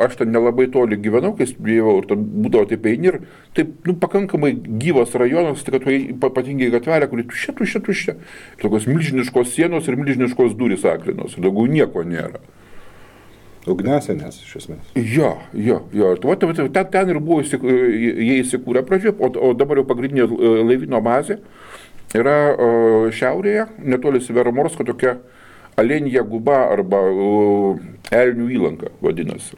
Speaker 2: aš ten nelabai toli gyvenau, kai studijavau, ir ten būdavo taip eini ir taip, pakankamai gyvas rajonas, tai kad ypatingai gatvelė, kuri tuščia. Tokios milžiniškos sienos ir milžiniškos durys aklinos, ir daugiau nieko nėra.
Speaker 1: Ugnesenės, iš esmės.
Speaker 2: Jo. Ten ir buvo jie įsikūrę pradžioje, o dabar jau pagrindinė laivyno bazė yra šiaurėje, netoli Severomorsko, tokia Alenija guba arba Elnių įlanka vadinasi.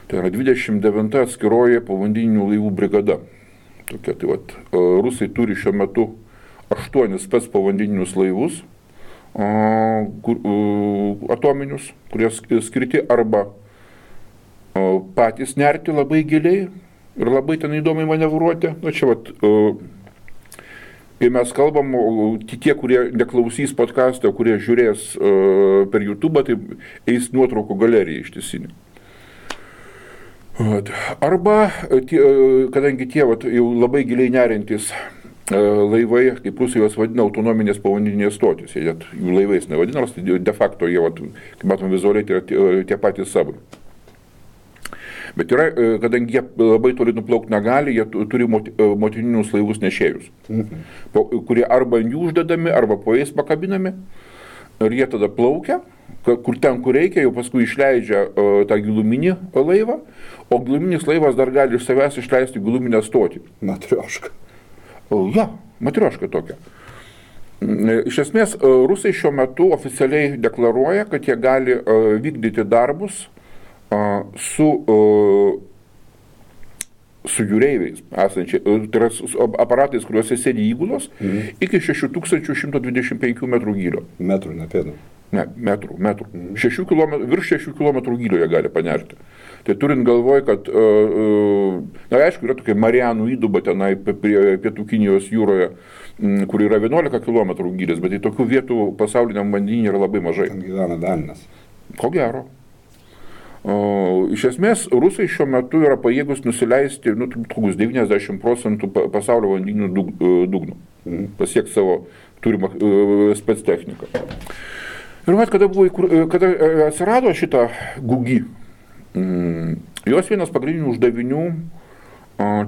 Speaker 2: Tai yra 29 atskiroji povandeninių laivų brigada. Tokia, tai rusai turi šiuo metu 8 spec povandeninius laivus atominius, kurie skirti arba patys nerti labai giliai ir labai ten įdomiai manevruoti. Kai mes kalbam, tie, kurie neklausys podcast'o, kurie žiūrės per YouTube, tai eis nuotraukų galerija ištisinė. Arba, kadangi tie jau labai giliai nerintis laivai, kaip rusai juos vadina, autonominės povandeninės stotis, jų laivais nevadina, nors de facto jie, kaip matom vizualiai, tai yra tie patys sabai. Bet yra, kadangi jie labai toli nuplaukti negali, jie turi motininius laivus nešėjus, kurie arba ant jų uždedami, arba po jais pakabinami. Ir jie tada plaukia, kur reikia, jau paskui išleidžia tą giluminį laivą, o giluminis laivas dar gali iš savęs išleisti giluminę stotį.
Speaker 1: Matrioška.
Speaker 2: Ja, matrioška tokia. Iš esmės, rusai šiuo metu oficialiai deklaruoja, kad jie gali vykdyti darbus su jūreiviais esančiai, tai yra aparatais, kuriuose sėdi įgulos, iki 6125 metrų gylio.
Speaker 1: Metrų, ne pėdų.
Speaker 2: Ne, metrų. Virš 6 km gylio jie gali panerti. Tai turint galvoj, kad, na aišku, yra tokia Marianų įduba tenai prie Pietų Kinijos jūroje, kur yra 11 km gylis, bet tai tokių vietų pasauliniam vandenyne yra labai mažai.
Speaker 1: Ten gyvena Dalinas.
Speaker 2: Ko gero. Iš esmės, rusai šiuo metu yra pajėgus nusileisti 90% pasaulio vandenynų dugnų. Pasiekti savo turimą spec techniką. Ir kada atsirado šitą GUGI, jos vienas pagrindinių uždavinių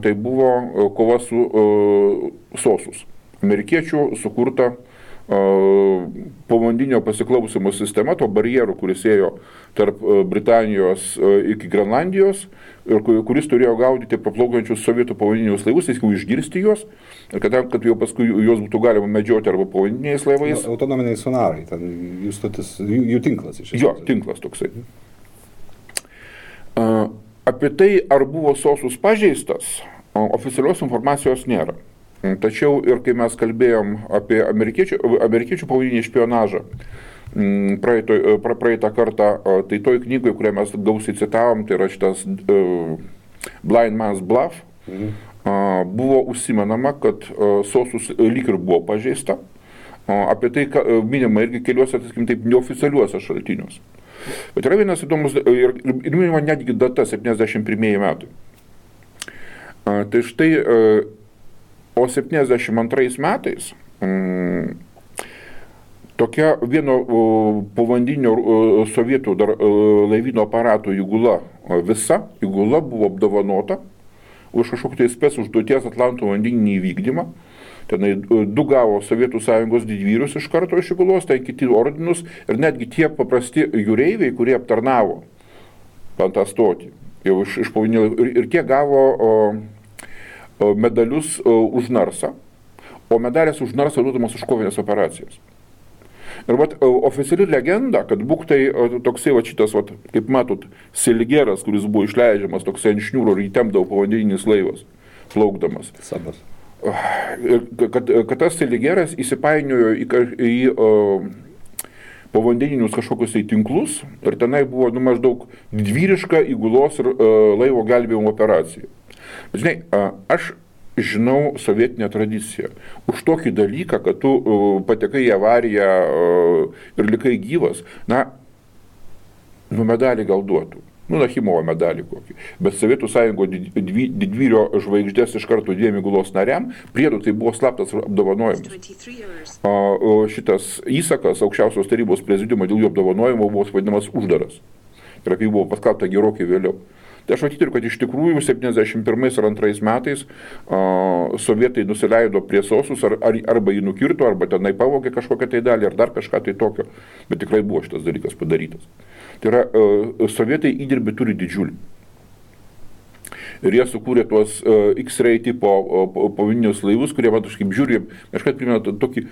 Speaker 2: tai buvo kova su SOSUS. Amerikiečių sukurta povandeninio pasiklausimo sistema, to barjerų, kuris ėjo tarp Britanijos iki Grenlandijos, ir kuris turėjo gaudyti paplaukiančius sovietų povandeninius laivus, jis jau išgirsti juos, ir kad jau paskui juos būtų galima medžioti arba povandeniniais laivais.
Speaker 1: Autonominiai sonarai, ten jų tinklas iš esmės.
Speaker 2: Jo, tinklas toksai. Apie tai, ar buvo SOSUS pažeistas, oficialios informacijos nėra. Tačiau ir kai mes kalbėjom apie amerikiečių povandeninį špionažą praeitą kartą, tai toj knygoje, kurią mes gausiai citavom, tai yra šitas Blind Man's Bluff, buvo užsimenama, kad SOSUS lyg ir buvo pažeista. Apie tai minima irgi keliuose, taip, neoficialiuose šaltiniuose. Bet yra vienas įdomus, ir minima netgi data 71 metai. Tai štai, o 72 metais tokia vieno povandeninio sovietų dar laivyno aparato įgula, visa įgula buvo apdovanota už kažkokį tai spec užduoties Atlanto vandeninį įvykdymą. Tenai 2 gavo Sovietų Sąjungos didvyrius iš karto iš įgulos, tai kiti ordinus ir netgi tie paprasti jūreiviai, kurie aptarnavo ant tą stotį. Jau iš povandeninio, ir tie gavo medalius už narsą, o medalės už narsą duodamas už kovinės operacijas. Ir oficiali legenda, kad būk tai toksai šitas, kaip matot, Seligeras, kuris buvo išleidžiamas toksai ant šniūro ir įtempdavo povandeninis laivas, plaukdamas.
Speaker 1: Sabas.
Speaker 2: Kad tas Seligeras įsipainiojo į povandeninius kažkokius tai tinklus ir tenai buvo maždaug didvyriška įgulos ir laivo gelbėjimo operacija. Žinai, aš žinau sovietinę tradiciją. Už tokį dalyką, kad tu patekai į avariją ir likai gyvas, medalį gal duotų. Nachimovo medalį kokį. Bet Sovietų Sąjungo didvyrio žvaigždės iš karto 2 įgulos nariam, priedu tai buvo slaptas apdovanojimas. Šitas įsakas aukščiausios tarybos prezidiumo dėl jų apdovanojimo buvo vadinamas uždaras. Ir apie jį buvo paskelbta gerokai vėliau. Tai aš matyturiu, kad iš tikrųjų 71 ir 2 metais sovietai nusileido prie SOSUS, arba jį nukirto, arba tenai pavogė kažkokią tai dalį, ar dar kažką tai tokio. Bet tikrai buvo šitas dalykas padarytas. Tai yra, sovietai įdirbį turi didžiulį. Ir jie sukūrė tuos X-ray tipo povandeninius laivus, kurie, kaip žiūri, kažkaip primena tokį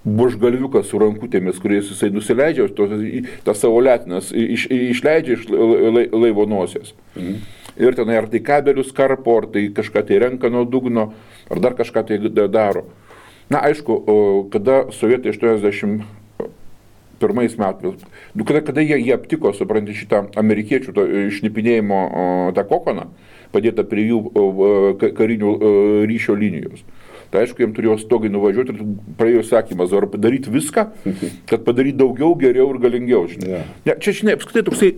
Speaker 2: bužgalviuką su rankutėmis, kuriais jisai nusileidžia, tas savo letinas išleidžia iš laivo nosies. Ir tenai ar tai kabelius karpo, ar tai kažką tai renka nuo dugno, ar dar kažką tai daro. Aišku, kada sovietai 81 metais, kada jie aptiko, supranti, šitą amerikiečių šnipinėjimo tą kokoną, padėtą prie jų karinių ryšio linijos. Tai aišku, jiems turėjo stogai nuvažiuoti ir praėjo sakymas, ar padaryti viską, kad padaryti daugiau, geriau ir galingiau. Žinai. Ja, čia, žinai, apskritai toksai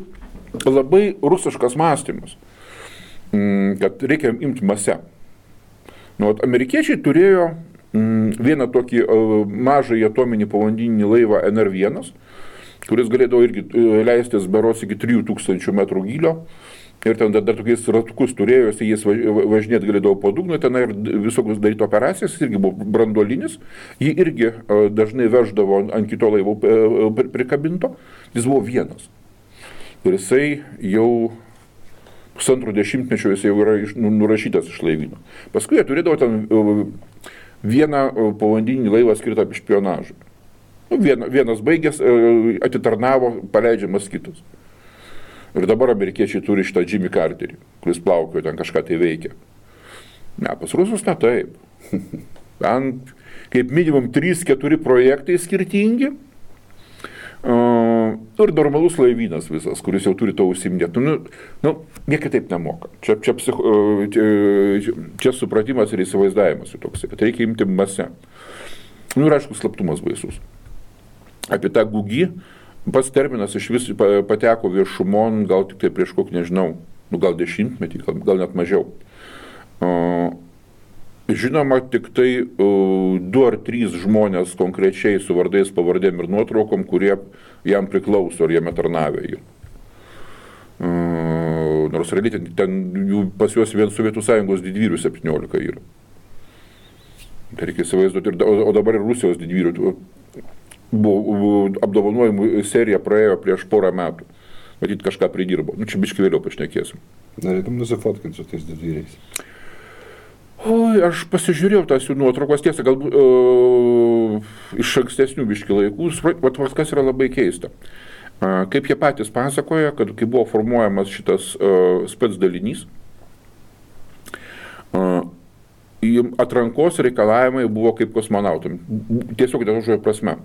Speaker 2: labai rusiškas mąstymas, kad reikia imti masę. Amerikiečiai turėjo vieną tokį mažą atominį povandeninį laivą NR1, kuris galėdavo irgi leistis berods iki 3000 metrų gylio. ir ten dar tokiais ratukus turėjo, jis važinėti galėdavo po dugną, ten ir visokius daryti operacijas, jis irgi buvo branduolinis, jį irgi dažnai veždavo ant kito laivo prikabinto, jis buvo vienas. Ir jisai jau pusantro dešimtmečio jis jau yra nurašytas iš laivyno. Paskui jie turėdavo ten vieną povandeninį laivą skirtą špionažui. Vienas baigęs, atitarnavo, paleidžiamas kitas. Ir dabar amerikiečiai turi šitą Jimmy Carterį, kuris plaukio ten kažką tai veikia. Ne, pas rusus ne taip. Ten kaip minimum 3-4 projektai skirtingi. Ir normalus laivynas visas, kuris jau turi to užsiimdėti. Jie kitaip nemoka. Čia supratimas ir įsivaizdavimas toks, kad reikia imti masę. Ir aišku, slaptumas baisus. Apie tą gugį pats terminas iš vis pateko viešumon, gal tik tai prieš kokį, nežinau, gal 10-metį, gal net mažiau. Žinoma, tik tai 2 ar 3 žmonės konkrečiai su vardais, pavardėm ir nuotraukom, kurie jam priklauso ar jame tarnavė jį. Nors realiai ten pas juos vien Sovietų Sąjungos didvyrių 17 yra. Tai reikia įsivaizduoti, o dabar ir Rusijos didvyrių. Buvo apdovanojimų serija praėjo prieš porą metų. Matyt, kažką pridirbo. Čia biškai vėliau pašnekėsim.
Speaker 1: Norėtum nusifotkinti su tais didvyriais?
Speaker 2: Oi, aš pasižiūrėjau tas jų nuotraukos, tiesa, galbūt iš ankstesnių biškai laikų. Kas yra labai keista. Kaip jie patys pasakoja, kad kai buvo formuojamas šitas spec dalinys, atrankos reikalavimai buvo kaip kosmonautam. Tiesiog tą žodžio prasme.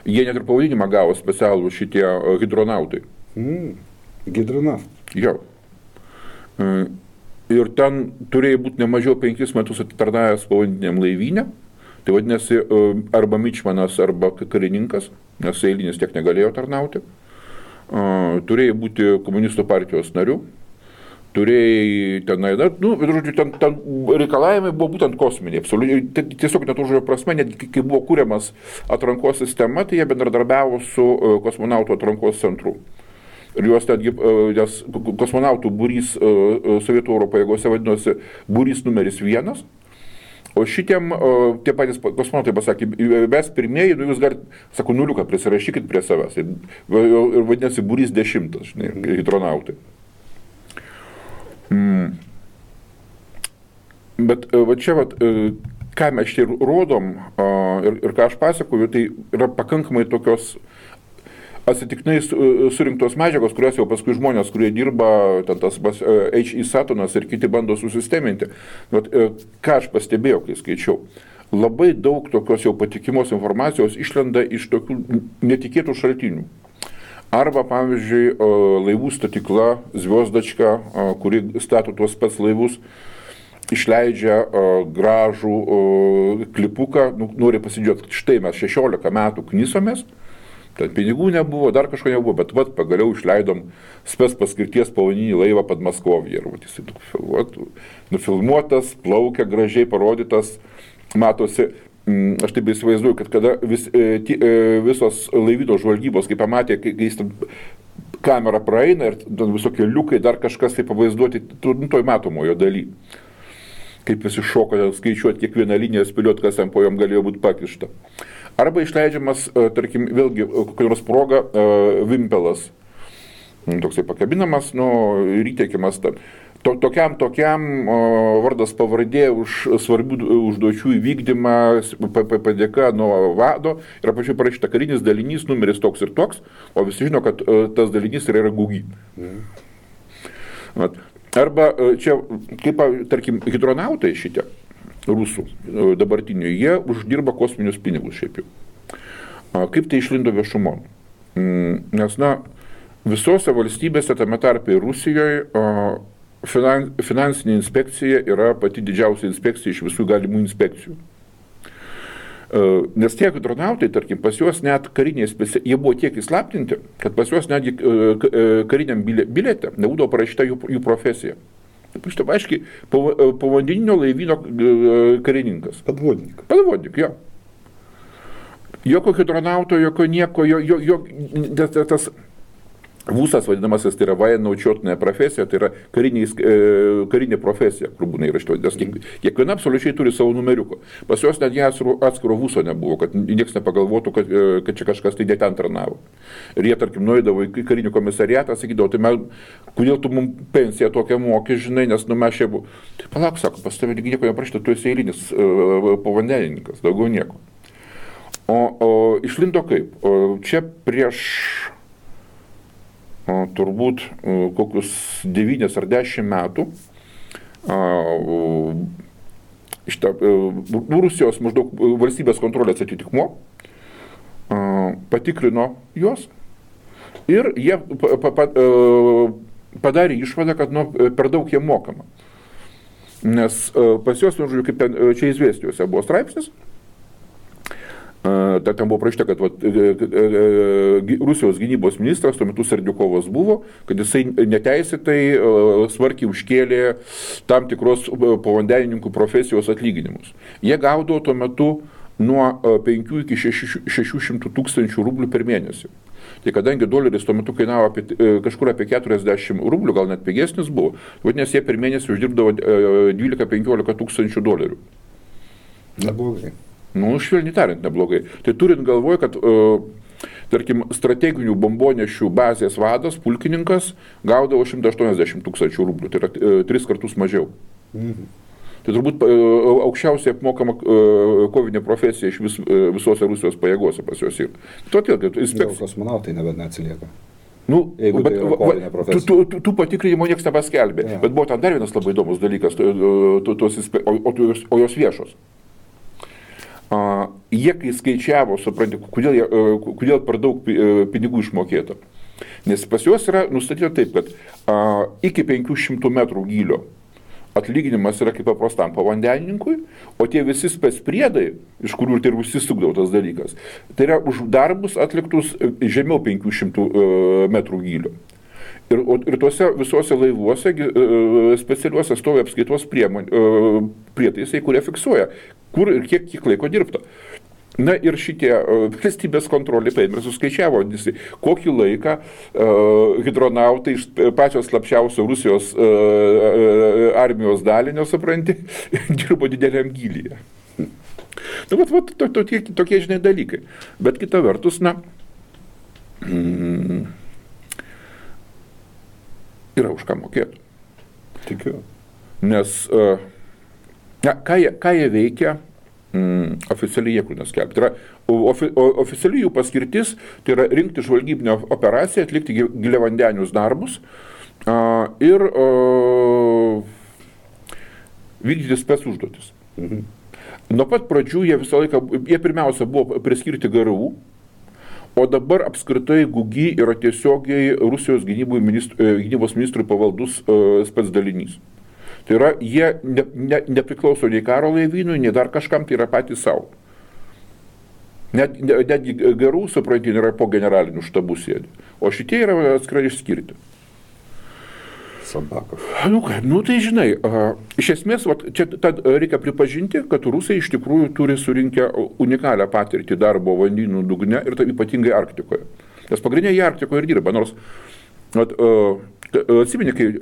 Speaker 2: Jie net ir pavadinimą gavo specialų šitie hidronautai.
Speaker 1: Hidronautai?
Speaker 2: Jo. Ir ten turėjo būti ne mažiau 5 metus atitarnavęs povandeniniam laivyne. Tai vadinasi, arba mičmanas, arba karininkas, nes eilinis tiek negalėjo tarnauti. Turėjo būti komunistų partijos narių. Turėjai tenai, ten reikalavimai buvo būtent kosminiai, absoliučiai, tiesiog net žodžio prasme, net kai buvo kūriamas atrankos sistema, tai jie bendradarbiavo su kosmonautų atrankos centru. Ir juos netgi, nes kosmonautų būrys Sovietų Oro pajėgose vadinosi būrys numeris 1, o šitiem tie patys kosmonautai pasakė, mes pirmieji, jūs galite, sako, nuliuką prisirašykit prie savęs. Ir vadinasi būrys 10, žinai, hidronautai. Bet va čia, ką mes čia rodom ir ką aš pasakoju, tai yra pakankamai tokios atsitiktinai surinktos medžiagos, kurios jau paskui žmonės, kurie dirba, ten tas H.E. Satonas ir kiti bando susisteminti. Bet ką aš pastebėjau, kai skaičiau, labai daug tokios jau patikimos informacijos išlenda iš tokių netikėtų šaltinių. Arba, pavyzdžiui, laivų statykla Zviozdačka, kuri stato tuos spec laivus, išleidžia gražų klipuką, nori pasidžiaugti, štai mes 16 metų knisomės, ten pinigų nebuvo, dar kažko nebuvo, bet pagaliau išleidom spec paskirties povandeninį laivą Podmaskovje. Ir jis nufilmuotas, plaukia, gražiai parodytas, matosi. Aš taip įsivaizduoju, kad kada visos laivyno žvalgybos, kai pamatė, kai jis kamera praeina ir visokie liukai, dar kažkas tai pavaizduoti toj matomojo daly. Kaip visi šoko skaičiuoti kiekvieną liniją, spėlioti, kas jam po jom galėjo būti pakišta. Arba išleidžiamas, tarkim, vėlgi, kokia nors proga, vimpelas. Toksai pakabinamas, ir įteikiamas tam. Tokiam vardas pavardė už svarbių užduočių įvykdymą, padėka nuo vado, yra pačiu parašyta karinis dalinys, numeris toks ir toks, o visi žino, kad tas dalinys yra gugy. Arba čia, kaip, tarkim, hidronautai šitie, rusų dabartiniai, jie uždirba kosminius pinigus šiaip jau. Kaip tai išlindo viešumon? Nes, visose valstybėse, tame tarpe ir Rusijoje, finansinė inspekcija yra pati didžiausia inspekcija iš visų galimų inspekcijų. Nes tie hidronautai, tarkim, pas juos net kariniai jie buvo tiek įslaptinti, kad pas juos netgi kariniam biliete nebūdavo parašyta jų profesija. Štai, aiškiai, povandeninio laivyno karininkas. Padvodnik, jo. Jokio hidronauto, jokio nieko, tas Vūsas vadinamasis, tai yra vajenaučiotnė profesija, tai yra karinė profesija, kur būna įrašyta, nes kiekviena absoliučiai turi savo numeriuką. Pas juos netgi atskiro vūso nebuvo, kad niekas nepagalvotų, kad čia kažkas tai ne ten tarnavo. Ir jie, tarkim, nueidavo į karinį komisariatą, sakydavo, tai kodėl tu mums pensiją tokią moki, žinai, nes mes čia buvo. Tai palauk, sako, pas tavę nieko neprašyta, tu esi eilinis povandenininkas, daugiau nieko. O išlindo kaip? Čia prieš turbūt kokius 9 ar 10 metų Rusijos maždaug valstybės kontrolės atitikmuo patikrino juos ir jie padarė išvadą, kad per daug jie mokama. Nes pas juos, kaip ten čia izvestijose buvo straipsnis, ten buvo prašyta, kad Rusijos gynybos ministras, tuo metu Serdiukovas buvo, kad jisai neteisėtai smarkiai užkėlė tam tikros povandenininkų profesijos atlyginimus. Jie gaudavo tuo metu nuo 5 iki 600 tūkstančių rublių per mėnesį. Tai kadangi doleris tuo metu kainavo kažkur apie 40 rublių, gal net pigesnis buvo, vadinasi, jie per mėnesį uždirbdavo 12-15 tūkstančių dolerių.
Speaker 1: Neblogai.
Speaker 2: Švelniai tariant, neblogai. Tai turint galvoj, kad, tarkim, strateginių bombonešių bazės vadas, pulkininkas, gaudavo 180 tūkstančių rublių, tai yra 3 kartus mažiau. Tai turbūt aukščiausiai apmokama kovinė profesija iš visose Rusijos pajėgose pas juos yra. Todėl,
Speaker 1: kosmonautai nebent neatsilieka.
Speaker 2: Jeigu tai yra kovinė profesija. Tų patikrinimo niekas nepaskelbė. Ja. Bet buvo ten dar vienas labai įdomus dalykas, o jos viešos. Jie, kai skaičiavo, supranti, kodėl per daug pinigų išmokėta. Nes pas juos yra nustatyta taip, kad iki 500 metrų gylio atlyginimas yra kaip paprastam povandenininkui, o tie visi specpriedai, iš kurių ir užsisukdavo tas dalykas, tai yra už darbus atliktus žemiau 500 metrų gylio. Ir tuose visuose laivuose specialiuose stovi apskaitos prietaisai, kurie fiksuoja, kur ir kiek laiko dirbta. Na ir šitie valstybės kontrolė paėmė ir suskaičiavo, kokį laiką hidronautai iš pačios slapčiausio Rusijos armijos dalinio, supranti, dirbo dideliam gylyje. Tokie, žinai, dalykai. Bet kita vertus, yra už ką mokėti.
Speaker 1: Tikiu.
Speaker 2: Nes ką jie veikia, oficialiai jie kur neskelbti. Tai yra oficialiai jų paskirtis, tai yra rinkti žvalgybinę operaciją, atlikti giliavandenius darbus ir vykdyti spec užduotis. Nuo pat pradžių jie pirmiausia buvo priskirti GRU, o dabar apskritai GUGI yra tiesiogiai Rusijos gynybos ministrui pavaldus spec dalinys. Tai yra, jie nepriklauso nei karo laivynui, nei dar kažkam, tai yra patys savo. Netgi GRU, suprantin, yra po generalinių štabų sėdi. O šitie yra atskirai išskirti.
Speaker 1: Sabakov.
Speaker 2: Tai žinai, iš esmės, čia reikia pripažinti, kad rusai iš tikrųjų turi surinkę unikalią patirtį darbo vandenynų dugne ir tai ypatingai Arktikoje. Nes pagrindinė jie Arktikoje ir dirba, nors atsimeni, kai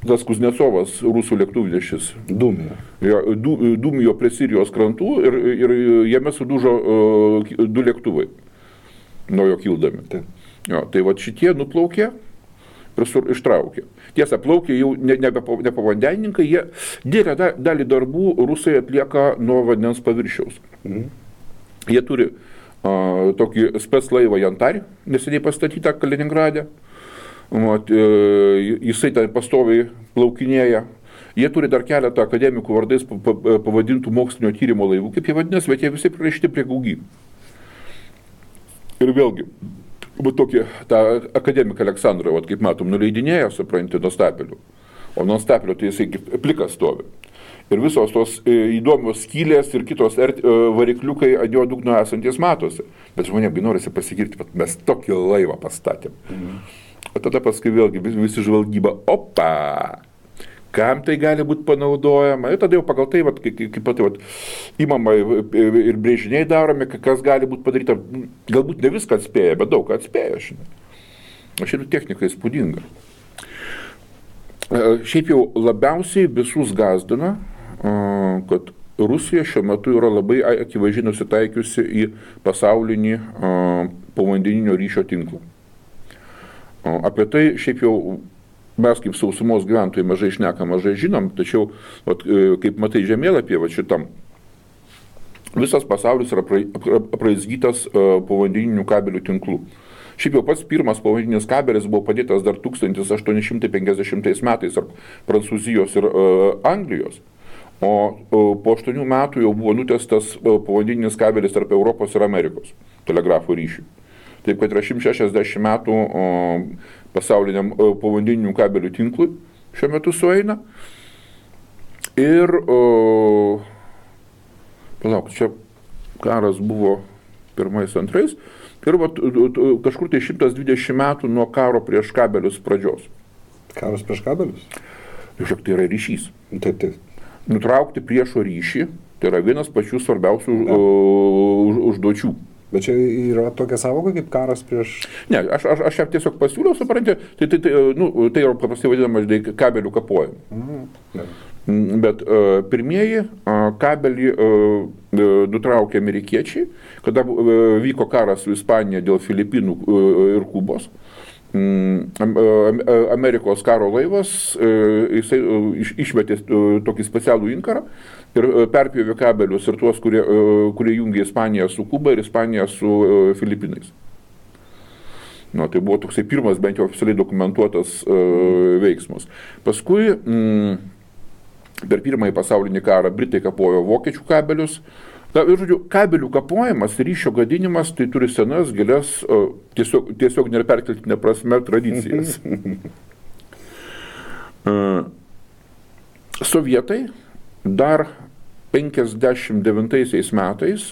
Speaker 2: tas Kuznecovas, rusų lėktuvnešis, dūmijo prie Sirijos krantų ir jame sudužo 2 lėktuvai nuo jo kildami. Tai šitie nuplaukė ir ištraukė. Tiesa, plaukė jau ne pavandenininkai, jie didelę dalį darbų rusai atlieka nuo vandens paviršiaus. Jie turi tokį spec laivą Jantarį, neseniai pastatytą Kaliningrade. Jisai ten pastoviai plaukinėja. Jie turi dar keletą akademikų vardais pavadintų mokslinio tyrimo laivų, kaip jie vadinasi, bet jie visi prirašyti prie GUGI. Ir vėlgi, tokį tą akademiką Aleksandrą, kaip matom, nuleidinėja, supranti, nuo stapelių. O nuo stapelio tai jisai plikas stovi. Ir visos tos įdomios skylės ir kitos varikliukai ant jo dugno esantis matosi. Bet žmonėms norisi pasigirti, kad mes tokį laivą pastatėm. O tada paskui vėlgi visi žvalgyba, kam tai gali būti panaudojama. Ir tada jau pagal tai, imama ir brėžiniai daromi, kas gali būti padaryta. Galbūt ne viską atspėja, bet daug ką atspėja, žinai. Šiaip technika įspūdinga. Šiaip jau labiausiai visus gazdina, kad Rusija šiuo metu yra labai akivaizdžiai nusitaikiusi į pasaulinį povandeninio ryšio tinklą. Apie tai šiaip jau mes kaip sausumos gyventojai mažai šnekam, mažai žinom, tačiau kaip matai žemėlapyje šitam, visas pasaulis yra apraizgytas povandeninių kabelių tinklų. Šiaip jau pats pirmas povandeninis kabelis buvo padėtas dar 1850 metais tarp Prancūzijos ir Anglijos. O po 8 metų jau buvo nutestas povandeninis kabelis tarp Europos ir Amerikos telegrafo ryšių. Taip kad yra 160 metų pasauliniam povandeninių kabelių tinklui šiuo metu sueina. Ir, palauk, čia karas buvo pirmais, antrais. Ir kažkur tai 120 metų nuo karo prieš kabelius pradžios.
Speaker 1: Karas prieš kabelius?
Speaker 2: Žiūrėk, tai yra ryšys.
Speaker 1: Taip.
Speaker 2: Nutraukti priešo ryšį, tai yra vienas pačių svarbiausių užduočių.
Speaker 1: Bet čia yra tokia sąvoka kaip karas prieš...
Speaker 2: Ne, aš ją tiesiog pasiūliau, supranti, tai yra paprastai vadinama kabelių kapojimu. Bet pirmieji kabelį nutraukė amerikiečiai, kada vyko karas su Ispanija dėl Filipinų ir Kubos. Amerikos karo laivas, jisai išmetė tokį specialų inkarą ir perpjovė kabelius ir tuos, kurie jungė Ispaniją su Kuba ir Ispaniją su Filipinais. Tai buvo toksai pirmas bent jau oficialiai dokumentuotas veiksmas. Paskui per pirmąjį pasaulinį karą Britai kapojo vokiečių kabelius. Ir, žodžiu, kabelių kapojimas, ryšio gadinimas, tai turi senas, gilias, tiesiog neperkeltinė prasme tradicijas. Sovietai dar 59 metais,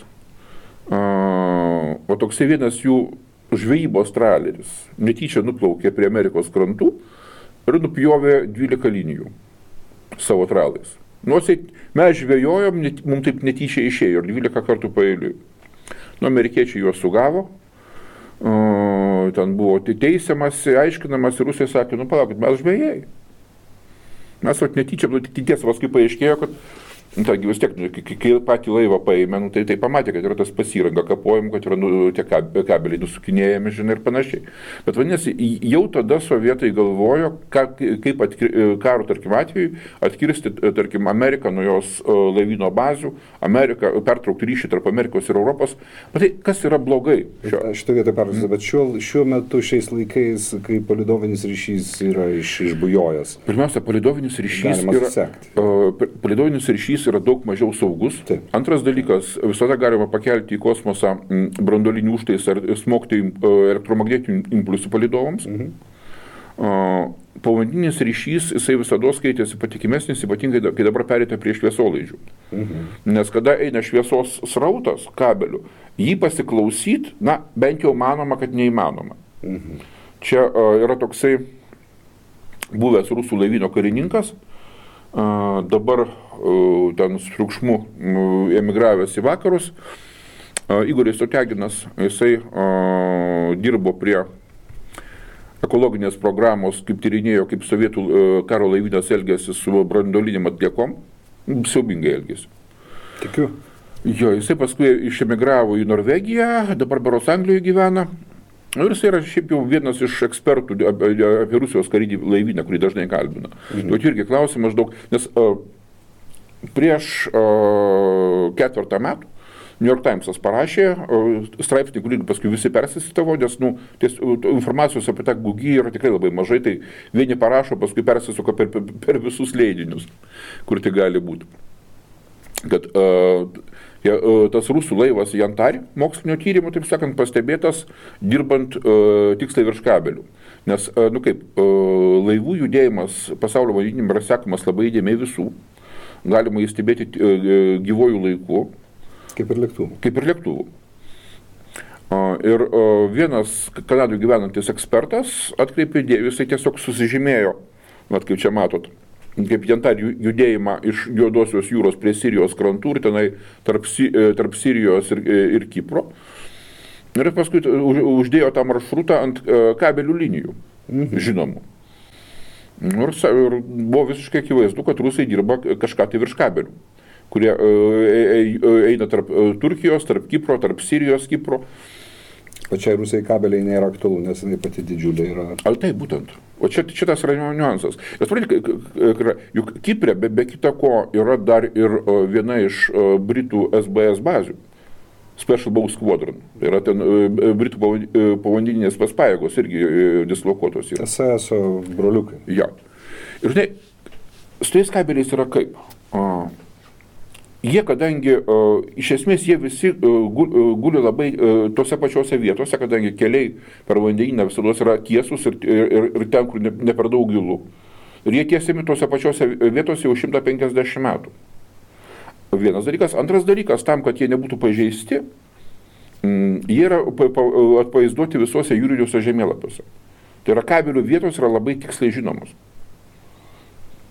Speaker 2: o toksai vienas jų žvejybos traleris netyčia nuplaukė prie Amerikos krantų ir nupjovė 12 linijų savo tralais. Mes žvejojom, mums taip netyčia išėjo ir 12 kartų paeiliui. Amerikiečiai juos sugavo, ten buvo teisiamasi, aiškinamas ir Rusija sakė, palaukit, mes žvejai. Mes netyčia, tiesa, paskui paaiškėjo, kad vis tiek, kai patį laivą paėmė, tai pamatė, kad yra tas pasiranga kapojimų, kad yra tie kabeliai nusukinėjami, žinai, ir panašiai. Bet vadinasi, jau tada sovietai galvojo, kaip karo, tarkim, atveju atkirsti, tarkim, Ameriką nuo jos laivyno bazių, pertraukti ryšį tarp Amerikos ir Europos. Bet tai kas yra blogai?
Speaker 1: Šitą vietą pertrauksiu, bet šiuo metu, šiais laikais, kai palidovinis ryšys yra išbujojęs.
Speaker 2: Pirmiausia, palidovinis ryšys yra daug mažiau saugus.
Speaker 1: Taip.
Speaker 2: Antras dalykas, visada galima pakelti į kosmosą branduolinį užtaisą ar smogti elektromagnetinių impulsų palidovams. Povandeninis ryšys, jisai visada skaitėsi patikimesnis, ypatingai, kai dabar perėta prie šviesolaidžių. Nes kada eina šviesos srautas kabelių, jį pasiklausyti, bent jau manoma, kad neįmanoma. Čia yra toksai buvęs rusų laivyno karininkas, dabar ten su triukšmu emigravęs į vakarus, Igoris Oteginas, jisai dirbo prie ekologinės programos, kaip tyrinėjo, kaip sovietų karo laivynas elgėsi su branduolinėm atliekom, siaubingai elgėsi.
Speaker 1: Tikiu.
Speaker 2: Jo, jisai paskui išemigravo į Norvegiją, dabar berods Anglijoje gyvena. Ir jis yra šiaip jau vienas iš ekspertų apie Rusijos karinį laivyną, kurį dažnai kalbina. Tai irgi klausimas daug, nes prieš 4 metų New York Timesas parašė straipsnį, kurį paskui visi persisitavo, nes informacijos apie tą gugį yra tikrai labai mažai, tai vieni parašo, paskui persisuka per visus leidinius, kur tai gali būti. Kad tas rusų laivas Jantari mokslinio tyrimų, taip sakant, pastebėtas dirbant tiksliai virš kabelių. Nes, laivų judėjimas pasaulio vandenyne yra sekamas labai įdėmiai visų. Galima įstebėti gyvojų laiku.
Speaker 1: Kaip ir lėktuvų.
Speaker 2: Ir vienas Kanadoje gyvenantis ekspertas atkreipė dėmesį, jisai tiesiog susižymėjo, kaip čia matot, kaip Jantari judėjimą iš Juodosios jūros prie Sirijos krantų ir tenai tarp Sirijos ir Kipro. Ir paskui uždėjo tą maršrutą ant kabelių linijų, žinomų. Ir buvo visiškai akivaizdu, kad rusai dirba kažką tai virš kabelių, kurie eina tarp Turkijos, tarp Kipro, tarp Sirijos, Kipro.
Speaker 1: Pačiai Rusijai kabeliai nėra aktualu, nes jinai pati didžiulė yra.
Speaker 2: Ar tai būtent? O čia tas yra niuansas. Juk Kiprė be kita ko yra dar ir viena iš Britų SBS bazių. Special Bow Squadron. Tai yra ten Britų povandeninės pajėgos irgi dislokuotos yra.
Speaker 1: SSO broliukai.
Speaker 2: Ja. Ir žinai, su tais kabeliais yra kaip? Jie, kadangi, iš esmės, jie visi guli labai tose pačiose vietose, kadangi keliai per vandenyną visada yra tiesus ir ten, kur ne per daug gilu. Ir jie tiesiami tose pačiose vietose jau 150 metų. Vienas dalykas. Antras dalykas, tam, kad jie nebūtų pažeisti, jie yra atvaizduoti visuose jūriniuose žemėlapiuose. Tai yra kabelių vietos yra labai tiksliai žinomos.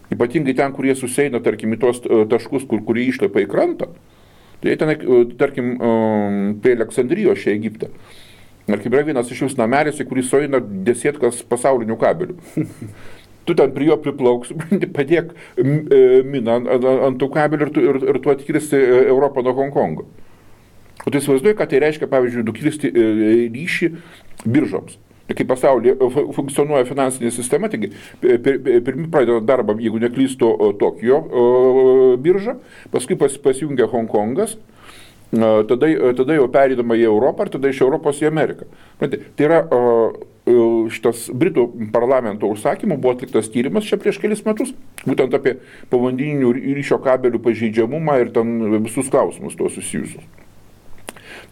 Speaker 2: Ypatingai ten, kur jie susieina, tarkim, į tos taškus, kur jie išlipa į krantą, tai ten, tarkim, prie Aleksandrijos čia Egipte. Tarkim, yra vienas iš jūs namelis, į kurį sueina desietkas pasaulinių kabelių. Tu ten prie jo priplauks, padėk miną ant tų kabelių ir tu atkirsti Europą nuo Hongkongo. O tai įsivaizduoji, kad tai reiškia, pavyzdžiui, nukirsti ryšį biržoms. Kai pasaulyje funkcionuoja finansinė sistema, taigi pirmi pradeda darbą, jeigu neklysto, Tokijo birža, paskui pasijungia Hongkongas, tada jau perėdama į Europą ir tada iš Europos į Ameriką. Tai yra šitas Britų parlamento užsakymų buvo atliktas tyrimas čia prieš kelis metus, būtent apie povandeninių ryšio kabelių pažeidžiamumą ir ten visus klausimus to susijusius.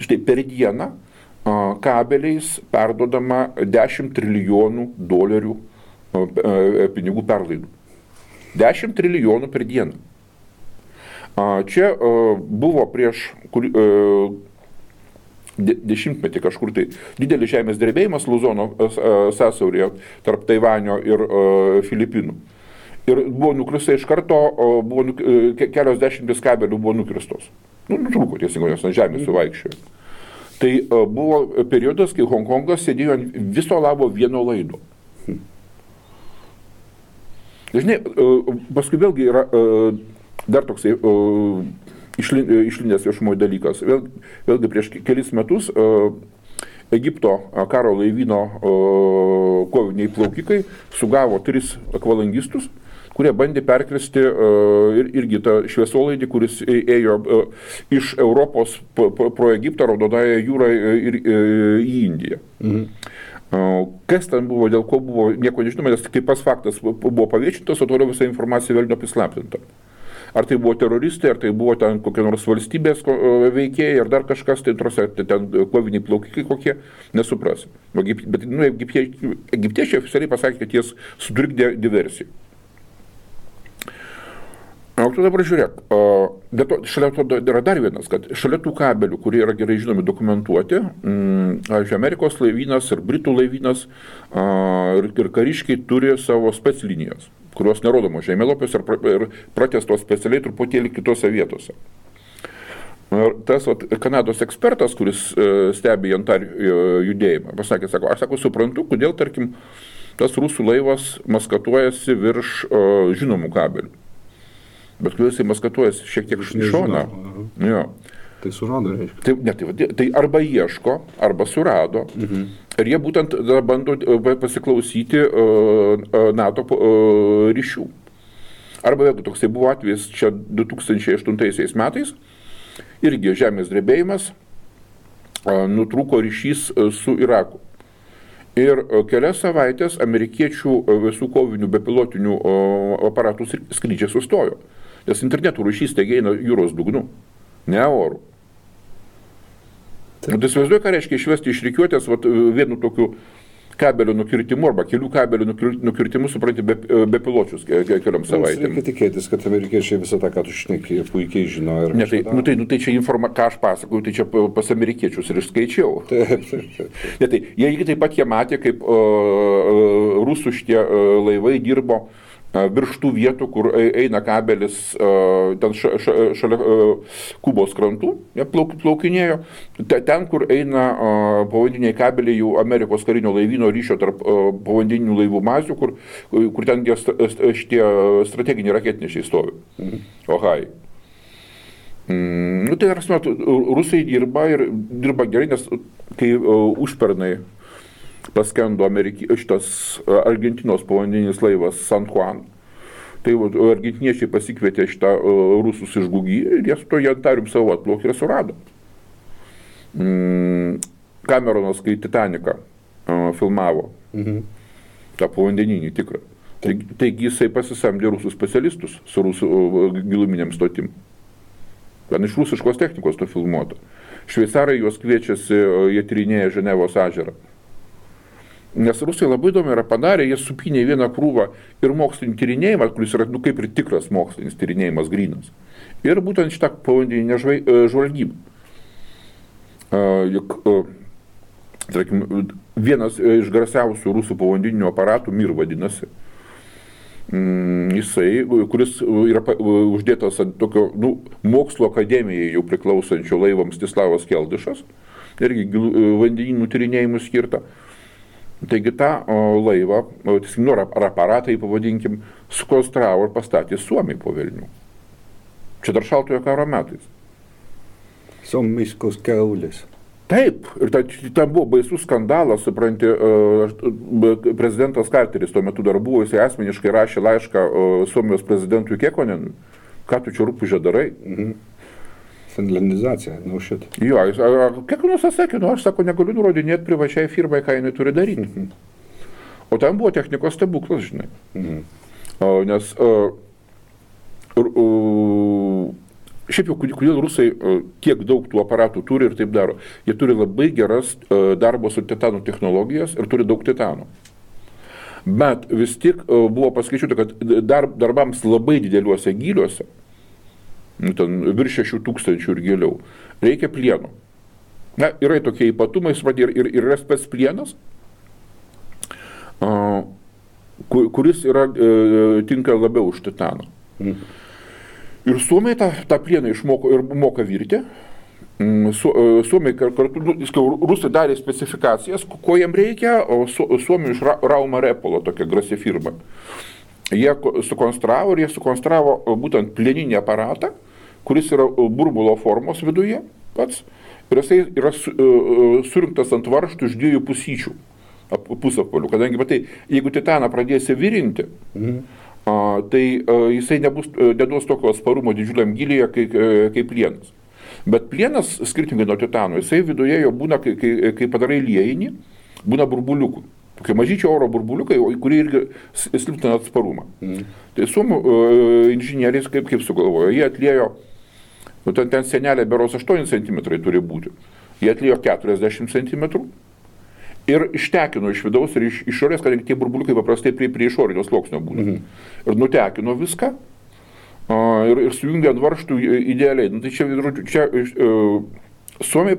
Speaker 2: Štai per dieną kabeliais perdodama 10 trilijonų dolerių pinigų perlaidų. 10 trilijonų per dieną. Čia buvo prieš dešimtmetį kažkur tai didelis žemės drebėjimas Luzono sąsiauryje tarp Taivanio ir Filipinų. Ir buvo nukrista iš karto, kelios dešimtis kabelių buvo nukristos. Nutrūko tiesingai, jos ant žemės suvaikščiojo. Tai buvo periodas, kai Hongkongas sėdėjo ant viso labo vieno laido. Žinai, paskui vėlgi yra dar toksai išlindęs viešumoje dalykas. Vėlgi prieš kelis metus Egipto karo laivyno koviniai plaukikai sugavo 3 akvalangistus, kurie bandė perkristi irgi tą šviesolaidį, kuris ėjo iš Europos pro Egiptą, Raudonąją jūrą ir į Indiją. Kas ten buvo, dėl ko buvo, nieko nežinoma, nes kaip pas faktas buvo paviešintas, o toliau visa informacija vėl neprislaptinta. Ar tai buvo teroristai, ar tai buvo ten kokie nors valstybės veikėjai, ar dar kažkas, tai ten koviniai plaukikai kokie, nesuprasi. Bet egiptiečiai oficialiai pasakė, kad jie sutrikdė diversiją. O tu dabar žiūrėk, bet šalia to yra dar vienas, kad šalia tų kabelių, kurie yra gerai žinomi dokumentuoti, Amerikos laivynas ir Britų laivynas ir kariškiai turi savo speclinijas, kurios nerodomos žemėlapiuose ir pratęstos specialiai truputėlį kitose vietose. Ir tas Kanados ekspertas, kuris stebi Jantar judėjimą, pasakė, aš suprantu, kodėl, tarkim, tas rusų laivas maskatuojasi virš žinomų kabelių. Bet kai jisai maskatuojasi šiek tiek iš šoną.
Speaker 1: Tai surado, reiškia.
Speaker 2: Tai arba ieško, arba surado. Ir jie būtent bando pasiklausyti NATO ryšių. Arba vėlgi toksai buvo atvejis čia 2008 metais. Irgi žemės drebėjimas, nutrūko ryšys su Iraku. Ir kelias savaitės amerikiečių visų kovinių bepilotinių aparatų skrydžiai sustojo. Nes internetų ryšys taigi eina jūros dugnu, ne orų. Tai įsivaizduoju, ką reiškia išvesti iš rikiuotės vienu tokiu kabelio nukirtimu arba kelių kabelio nukirtimu, supranti, bepiločius keliom savaitėm.
Speaker 1: Reikia tikėtis, kad amerikiečiai visą tą, ką tu šneki, puikiai žino.
Speaker 2: Tai čia ką aš pasakoju, tai čia pas amerikiečius ir išskaičiau.
Speaker 1: Taip.
Speaker 2: Jie taip pat jie matė, kaip rusų šitie laivai dirbo virš tų vietų, kur eina kabelis ten šalia Kubos krantų, jie plaukinėjo, ten, kur eina povandeniniai kabeliai jau Amerikos karinio laivyno ryšio tarp povandeninių laivų mazių, kur ten šitie strateginiai raketnešiai stovi. Ohai. Tai yra, rusai dirba gerai, nes kai užpernai paskendo šitas Argentinos povandeninis laivas San Juan, tai argentiniečiai pasikvietė šitą rusus iš Gugy ir jie su to Jantarium savo atplaukė ir surado. Cameronas, kai Titaniką filmavo, tą povandeninį tikrą, taigi jisai pasisamdė rusų specialistus su rusų giluminiam stotim. Ten iš rusiškos technikos to filmuota. Šveicarai juos kviečiasi, jie tyrinėja Ženevos ežerą. Nes rusai labai įdomi yra padarę, jie supinė vieną krūvą ir mokslinį tyrinėjimą, kuris yra kaip ir tikras mokslinis tyrinėjimas grynas. Ir būtent šitą povandeninę žvalgybą. Tarkim, vienas iš garsiausių rusų povandeninių aparatų, Mir vadinasi, jisai, kuris yra uždėtas ant tokio mokslo akademijai jau priklausančio laivo Mstislavas Keldyšas, irgi vandeninų tyrinėjimų skirta. Taigi tą laivą, ar aparatai pavadinkim, sukonstravo ir pastatė Suomiai po Vilnių. Čia dar šaltojo karo metais.
Speaker 1: Suomiškos kiaulės.
Speaker 2: Taip, ir ten buvo baisus skandalas, supranti, prezidentas Carteris tuo metu dar buvo, jisai asmeniškai rašė laišką Suomijos prezidentui Kekkonenui, ką tu čia rūpužė darai?
Speaker 1: Finlandizacija, šitą.
Speaker 2: Jo, Kekkonas atsakė, aš sako, negaliu nurodinėti privačiai firmai, ką jinai turi daryti. O ten buvo technikos stebuklas, žinai. Nes šiaip jau, kodėl rusai tiek daug tų aparatų turi ir taip daro. Jie turi labai geras darbo su titanu technologijas ir turi daug titano. Bet vis tik buvo paskaičiuota, kad darbams labai dideliuose gyliuose, ten virš 6000 ir giliau, reikia plieno. Na, yra tokie ypatumai, ir yra spec plienas, kuris tinka labiau už titaną. Ir suomiai tą plieną išmoko ir moka virti. Suomiai kartu, rusai darė specifikacijas, ko jiem reikia, o suomiai iš Rauma Repolo, tokia grasi firma. Jie sukonstravo būtent plieninį aparatą, kuris yra burbulo formos viduje pats, ir jisai yra surinktas ant varžtų iš 2 pusyčių, pusapvalių, kadangi, matai, jeigu titaną pradėsi virinti, tai jisai neduos tokio atsparumo didžiuliam gilyje kaip plienas. Bet plienas, skirtingai nuo titano, jisai viduje jo būna, kai padarai liejinį, būna burbuliukų. Tokie mažyčiai oro burbuliukai, kurie irgi silpnina atsparumą. Tai suomių inžinieriais kaip sugalvojo, jie atliejo, ten senelė beros 8 cm turi būti, jie atliejo 40 cm. Ir ištekino iš vidaus ir iš išorės, kadangi tie burbuliukai paprastai prie išorinio sluoksnio būna. Ir nutekino viską ir sujungė ant varžtų idealiai. Tai čia suomiai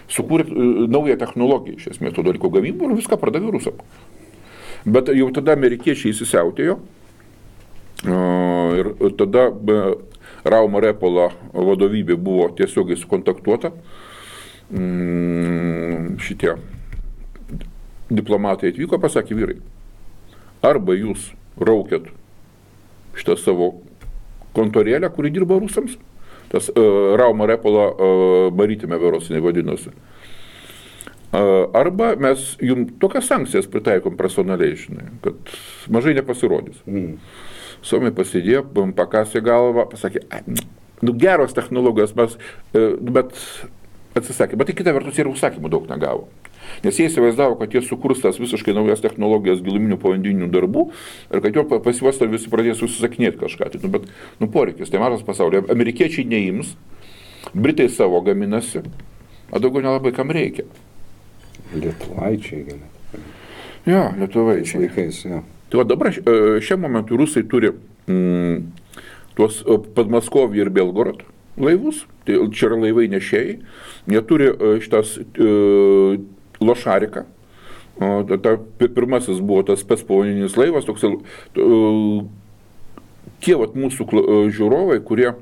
Speaker 2: sukūrė naują technologiją, iš esmės, to dalyko gamybų ir viską pardavė rusam. Bet jau tada amerikiečiai įsisiautėjo ir tada Rauma Repolo vadovybė buvo tiesiogiai sukontaktuota. Šitie diplomatai atvyko, pasakė, vyrai, arba jūs raukėt šitą savo kontorėlę, kuri dirba rusams, tas Rauma Repolo barytime verosinė vadinosi, arba mes jums tokias sankcijas pritaikom personaliai, žinai, kad mažai nepasirodys. Suomiai pasidėjo, pakasė galvą, pasakė, geros technologijos, bet atsisakė, bet tai kita vertus ir užsakymų daug negavo. Nes jie įsivaizdavo, kad jie sukurs tas visiškai naujas technologijas giluminių povandeninių darbų ir kad jo pasiuosto visi pradės užsisakinėti kažką. Bet poreikis, tai mažas pasaulyje. Amerikiečiai neims, Britai savo gaminasi, o daugiau nelabai kam reikia.
Speaker 1: Lietuvaičiai galėtų.
Speaker 2: Jo, lietuvaičiai.
Speaker 1: Laikais, jo.
Speaker 2: Tai dabar šiam momentui rusai turi tuos Podmaskovį ir Belgorod laivus, tai čia yra laivai nešėjai, jie turi šitas Lošariką, Pirmasis buvo tas spec povandeninis laivas, toks, tie vat mūsų žiūrovai, kurie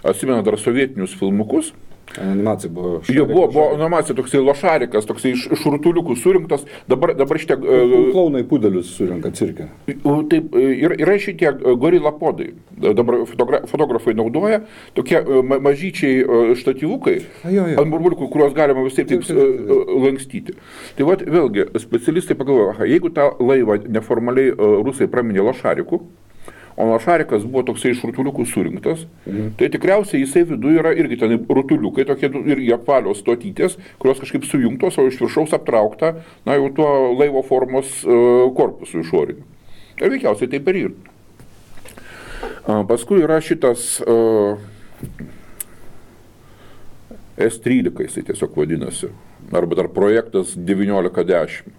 Speaker 2: atsimena dar sovietinius filmukus.
Speaker 1: Animacija buvo.
Speaker 2: Jo, buvo animacija, toksai lošarikas, toksai iš rutuliukų surinktas, dabar šitie...
Speaker 1: Klaunai pudelius surinka cirke.
Speaker 2: Taip, yra šitie gorilapodai, dabar fotografai naudoja, tokie mažyčiai štatyvukai, ant burbuliukų, kuriuos galima vis taip lankstyti. Tai vat, vėlgi, specialistai pagalvoja, jeigu tą laivą neformaliai rusai praminė lošariku, o lošarikas buvo toksai iš rutuliukų surinktas, tai tikriausiai jisai viduje yra irgi ten rutuliukai, tokie irgi apvalios stotytės, kurios kažkaip sujungtos, o iš viršaus aptraukta, na jau tuo laivo formos korpusu išoriniu. Ir veikiausiai taip ir yra. Paskui yra šitas S13, jisai tiesiog vadinasi, arba dar projektas 1910.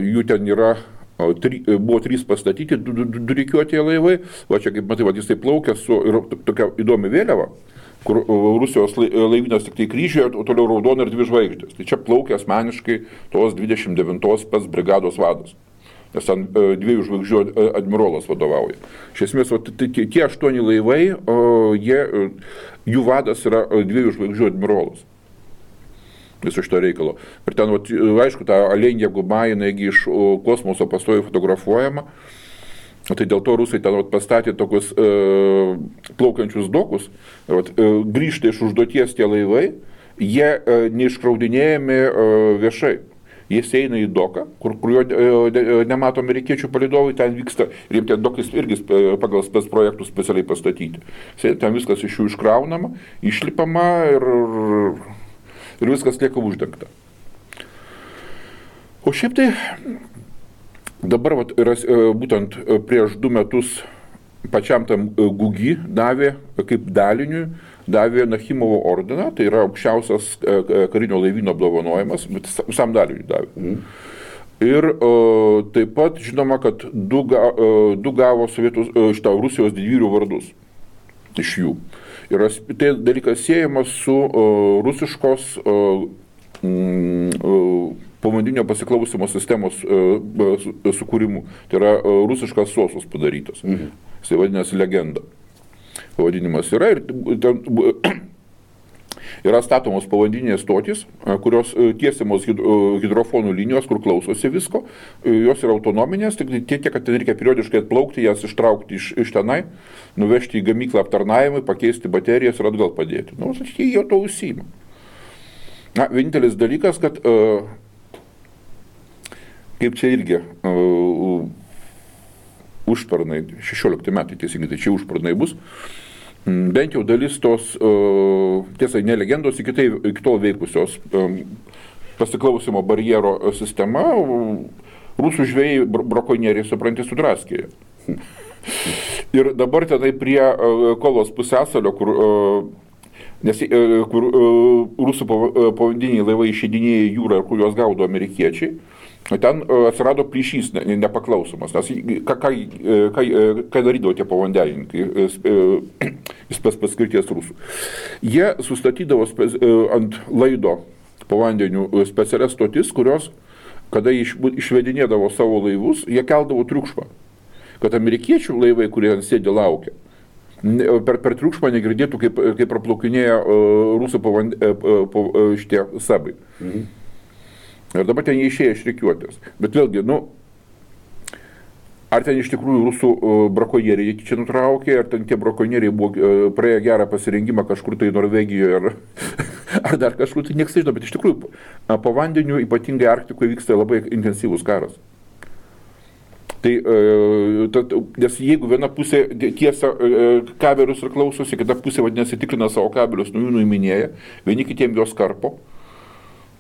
Speaker 2: Jų ten yra buvo 3 pastatyti, 2 rikiuotieji laivai, va čia kaip matai, jis tai plaukia su tokia įdomi vėliava, kur Rusijos laivynas tik tai kryžiuje, o toliau raudona ir 2 žvaigždės. Tai čia plaukia asmeniškai tos 29 spec brigados vadas, nes ten 2 žvaigždžių admirolas vadovauja. Iš esmės, tie 8 laivai, jų vadas yra 2 žvaigždžių admirolas. Viso šito reikalo. Ir ten, aišku, ta Alenija Guba, jinai iš kosmoso pastoviai fotografuojama. Tai dėl to rusai ten pastatė tokius plaukiančius dokus. Grįžta iš užduoties tie laivai, jie neiškraudinėjami viešai. Jis eina į doką, kur jo nemato amerikiečių palydovai, ten vyksta, ir jiems tie dokais irgi pagal spec projektus specialiai pastatyti. Ten viskas iš jų iškraunama, išlipama ir viskas lieka uždengta. O šiaip tai dabar būtent prieš 2 metus pačiam tam Gugi davė, kaip daliniui, davė Nachimovo ordiną, tai yra aukščiausias karinio laivyno apdovanojimas, bet visam daliniui davė. Ir taip pat žinoma, kad 2 gavo Rusijos didvyrių vardus iš jų. Ir tai dalykas siejamas su rusiškos povandeninio pasiklausimo sistemos sukūrimu. Tai yra rusiškas sosus padarytas. Jisai vadinasi Legenda. Pavadinimas yra ir yra statomos povandeninės stotys, kurios tiesiamos hidrofonų linijos, kur klausosi visko. Jos yra autonominės, tik tiek, kad ten reikia periodiškai atplaukti, jas ištraukti iš tenai, nuvežti į gamyklą aptarnavimui, pakeisti baterijas ir atgal padėti. Nu, jie jau to užsiima. Na, vienintelis dalykas, kad kaip čia irgi užpernai, 16 metai teisingai, tai čia užpernai bus, bent jau dalis tos, tiesa, ne legendos, iki tol veikusios pasiklausimo barjero sistema, rusų žvejai brakonieriai, supranti, sudraskėja. Ir dabar tenai prie Kolos pusiasalio, kur rusų povandeniniai laivai išeidinėja į jūrą, kur juos gaudo amerikiečiai, ten atsirado plyšys nepaklausomas, nes ką darydavo tie povandenininkai, spec paskirties rusų. Jie sustatydavo ant laido povandenių specialias stotis, kurios, kada išvedinėdavo savo laivus, jie keldavo triukšmą, kad amerikiečių laivai, kurie ant sėdė laukia, per triukšmą negirdėtų, kaip praplaukinėja rusų šitie sabai. Ir dabar ten jie išėjo iš rikiuotės. Bet vėlgi, ar ten iš tikrųjų rusų brakonieriai čia nutraukė, ar ten tie brakonieriai buvo praėję gerą pasirengimą kažkur tai Norvegijoje, ar dar kažkur, tai nieks nežino, bet iš tikrųjų po vandeniu, ypatingai Arktikoje, vyksta labai intensyvus karas. Tai, nes jeigu viena pusė tiesia kabelius ir klausosi, kita pusė vadinasi tikrina savo kabelius, jų nuiminėja, vieni kitiem jos karpo.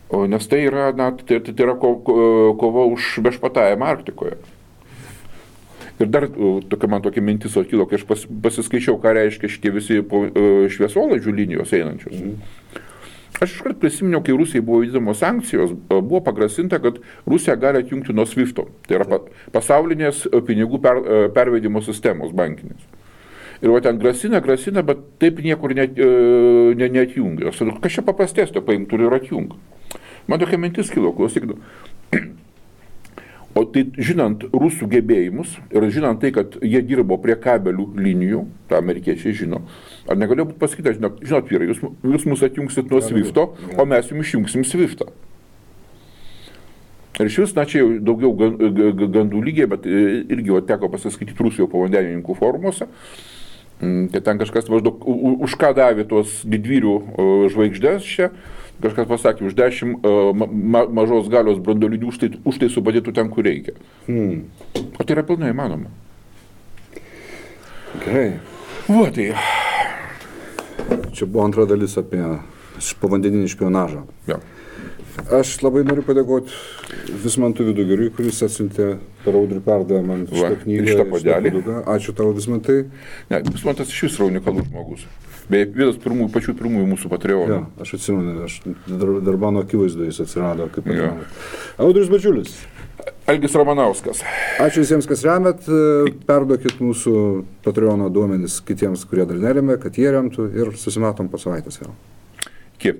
Speaker 2: Nes tai yra, tai yra kova už viešpatavimą Arktikoje. Ir dar man tokia mintis kilo, kai aš pasiskaičiau, ką reiškia šitie visi šviesolaidžių linijos einančios. Aš iškart prisiminiau, kai Rusijai buvo vykdomos sankcijos, buvo pagrasinta, kad Rusija gali atjungti nuo SWIFT-o. Tai yra pasaulinės pinigų pervedimo sistemos bankinės. Ir va ten grasina, bet taip niekur neatjungia. Kas čia paprastesnio paimtų ir atjungia. Man tokia mintis kilo, klausykit. O tai žinant rusų gebėjimus ir žinant tai, kad jie dirbo prie kabelių linijų, tą amerikiečiai žino, ar negalėjo būti pasakyta, žinot vyrai, jūs mus atjungsit nuo Swifto, o mes jums išjungsim Swiftą. Ir iš vis, čia jau daugiau gandų lygiai, bet irgi teko pasiskaityti Rusijos povandenininkų forumuose, kad ten kažkas maždaug už ką davė tuos didvyrių žvaigždės čia, kažkas pasakė, už 10 mažos galios branduolinių už tai supadėtų ten, kur reikia. O tai yra pilnai įmanoma.
Speaker 1: Gerai.
Speaker 2: Va tai.
Speaker 1: Čia buvo antra dalis apie povandeninį špionažą.
Speaker 2: Ja.
Speaker 1: Aš labai noriu padėkoti Vismantui Vidugiriui, kuris atsiuntė per Audrių perdą man šitą knygą.
Speaker 2: Šitą puodelį.
Speaker 1: Ačiū tau, Vismantai.
Speaker 2: Ne, Vismantas iš vis yra unikalus žmogus. Beje, vienas pačių pirmųjų mūsų Patreonų.
Speaker 1: Ja, aš atsimenu, dar mano akivaizdu jis atsirado kaip Patreonų. Audrius Badžiulis.
Speaker 2: Algis Ramanauskas.
Speaker 1: Ačiū visiems, kas remet. Perduokit mūsų Patreono duomenis kitiems, kurie dar neremia, kad jie remtų ir susimatom po savaitės vėl.
Speaker 2: Iki.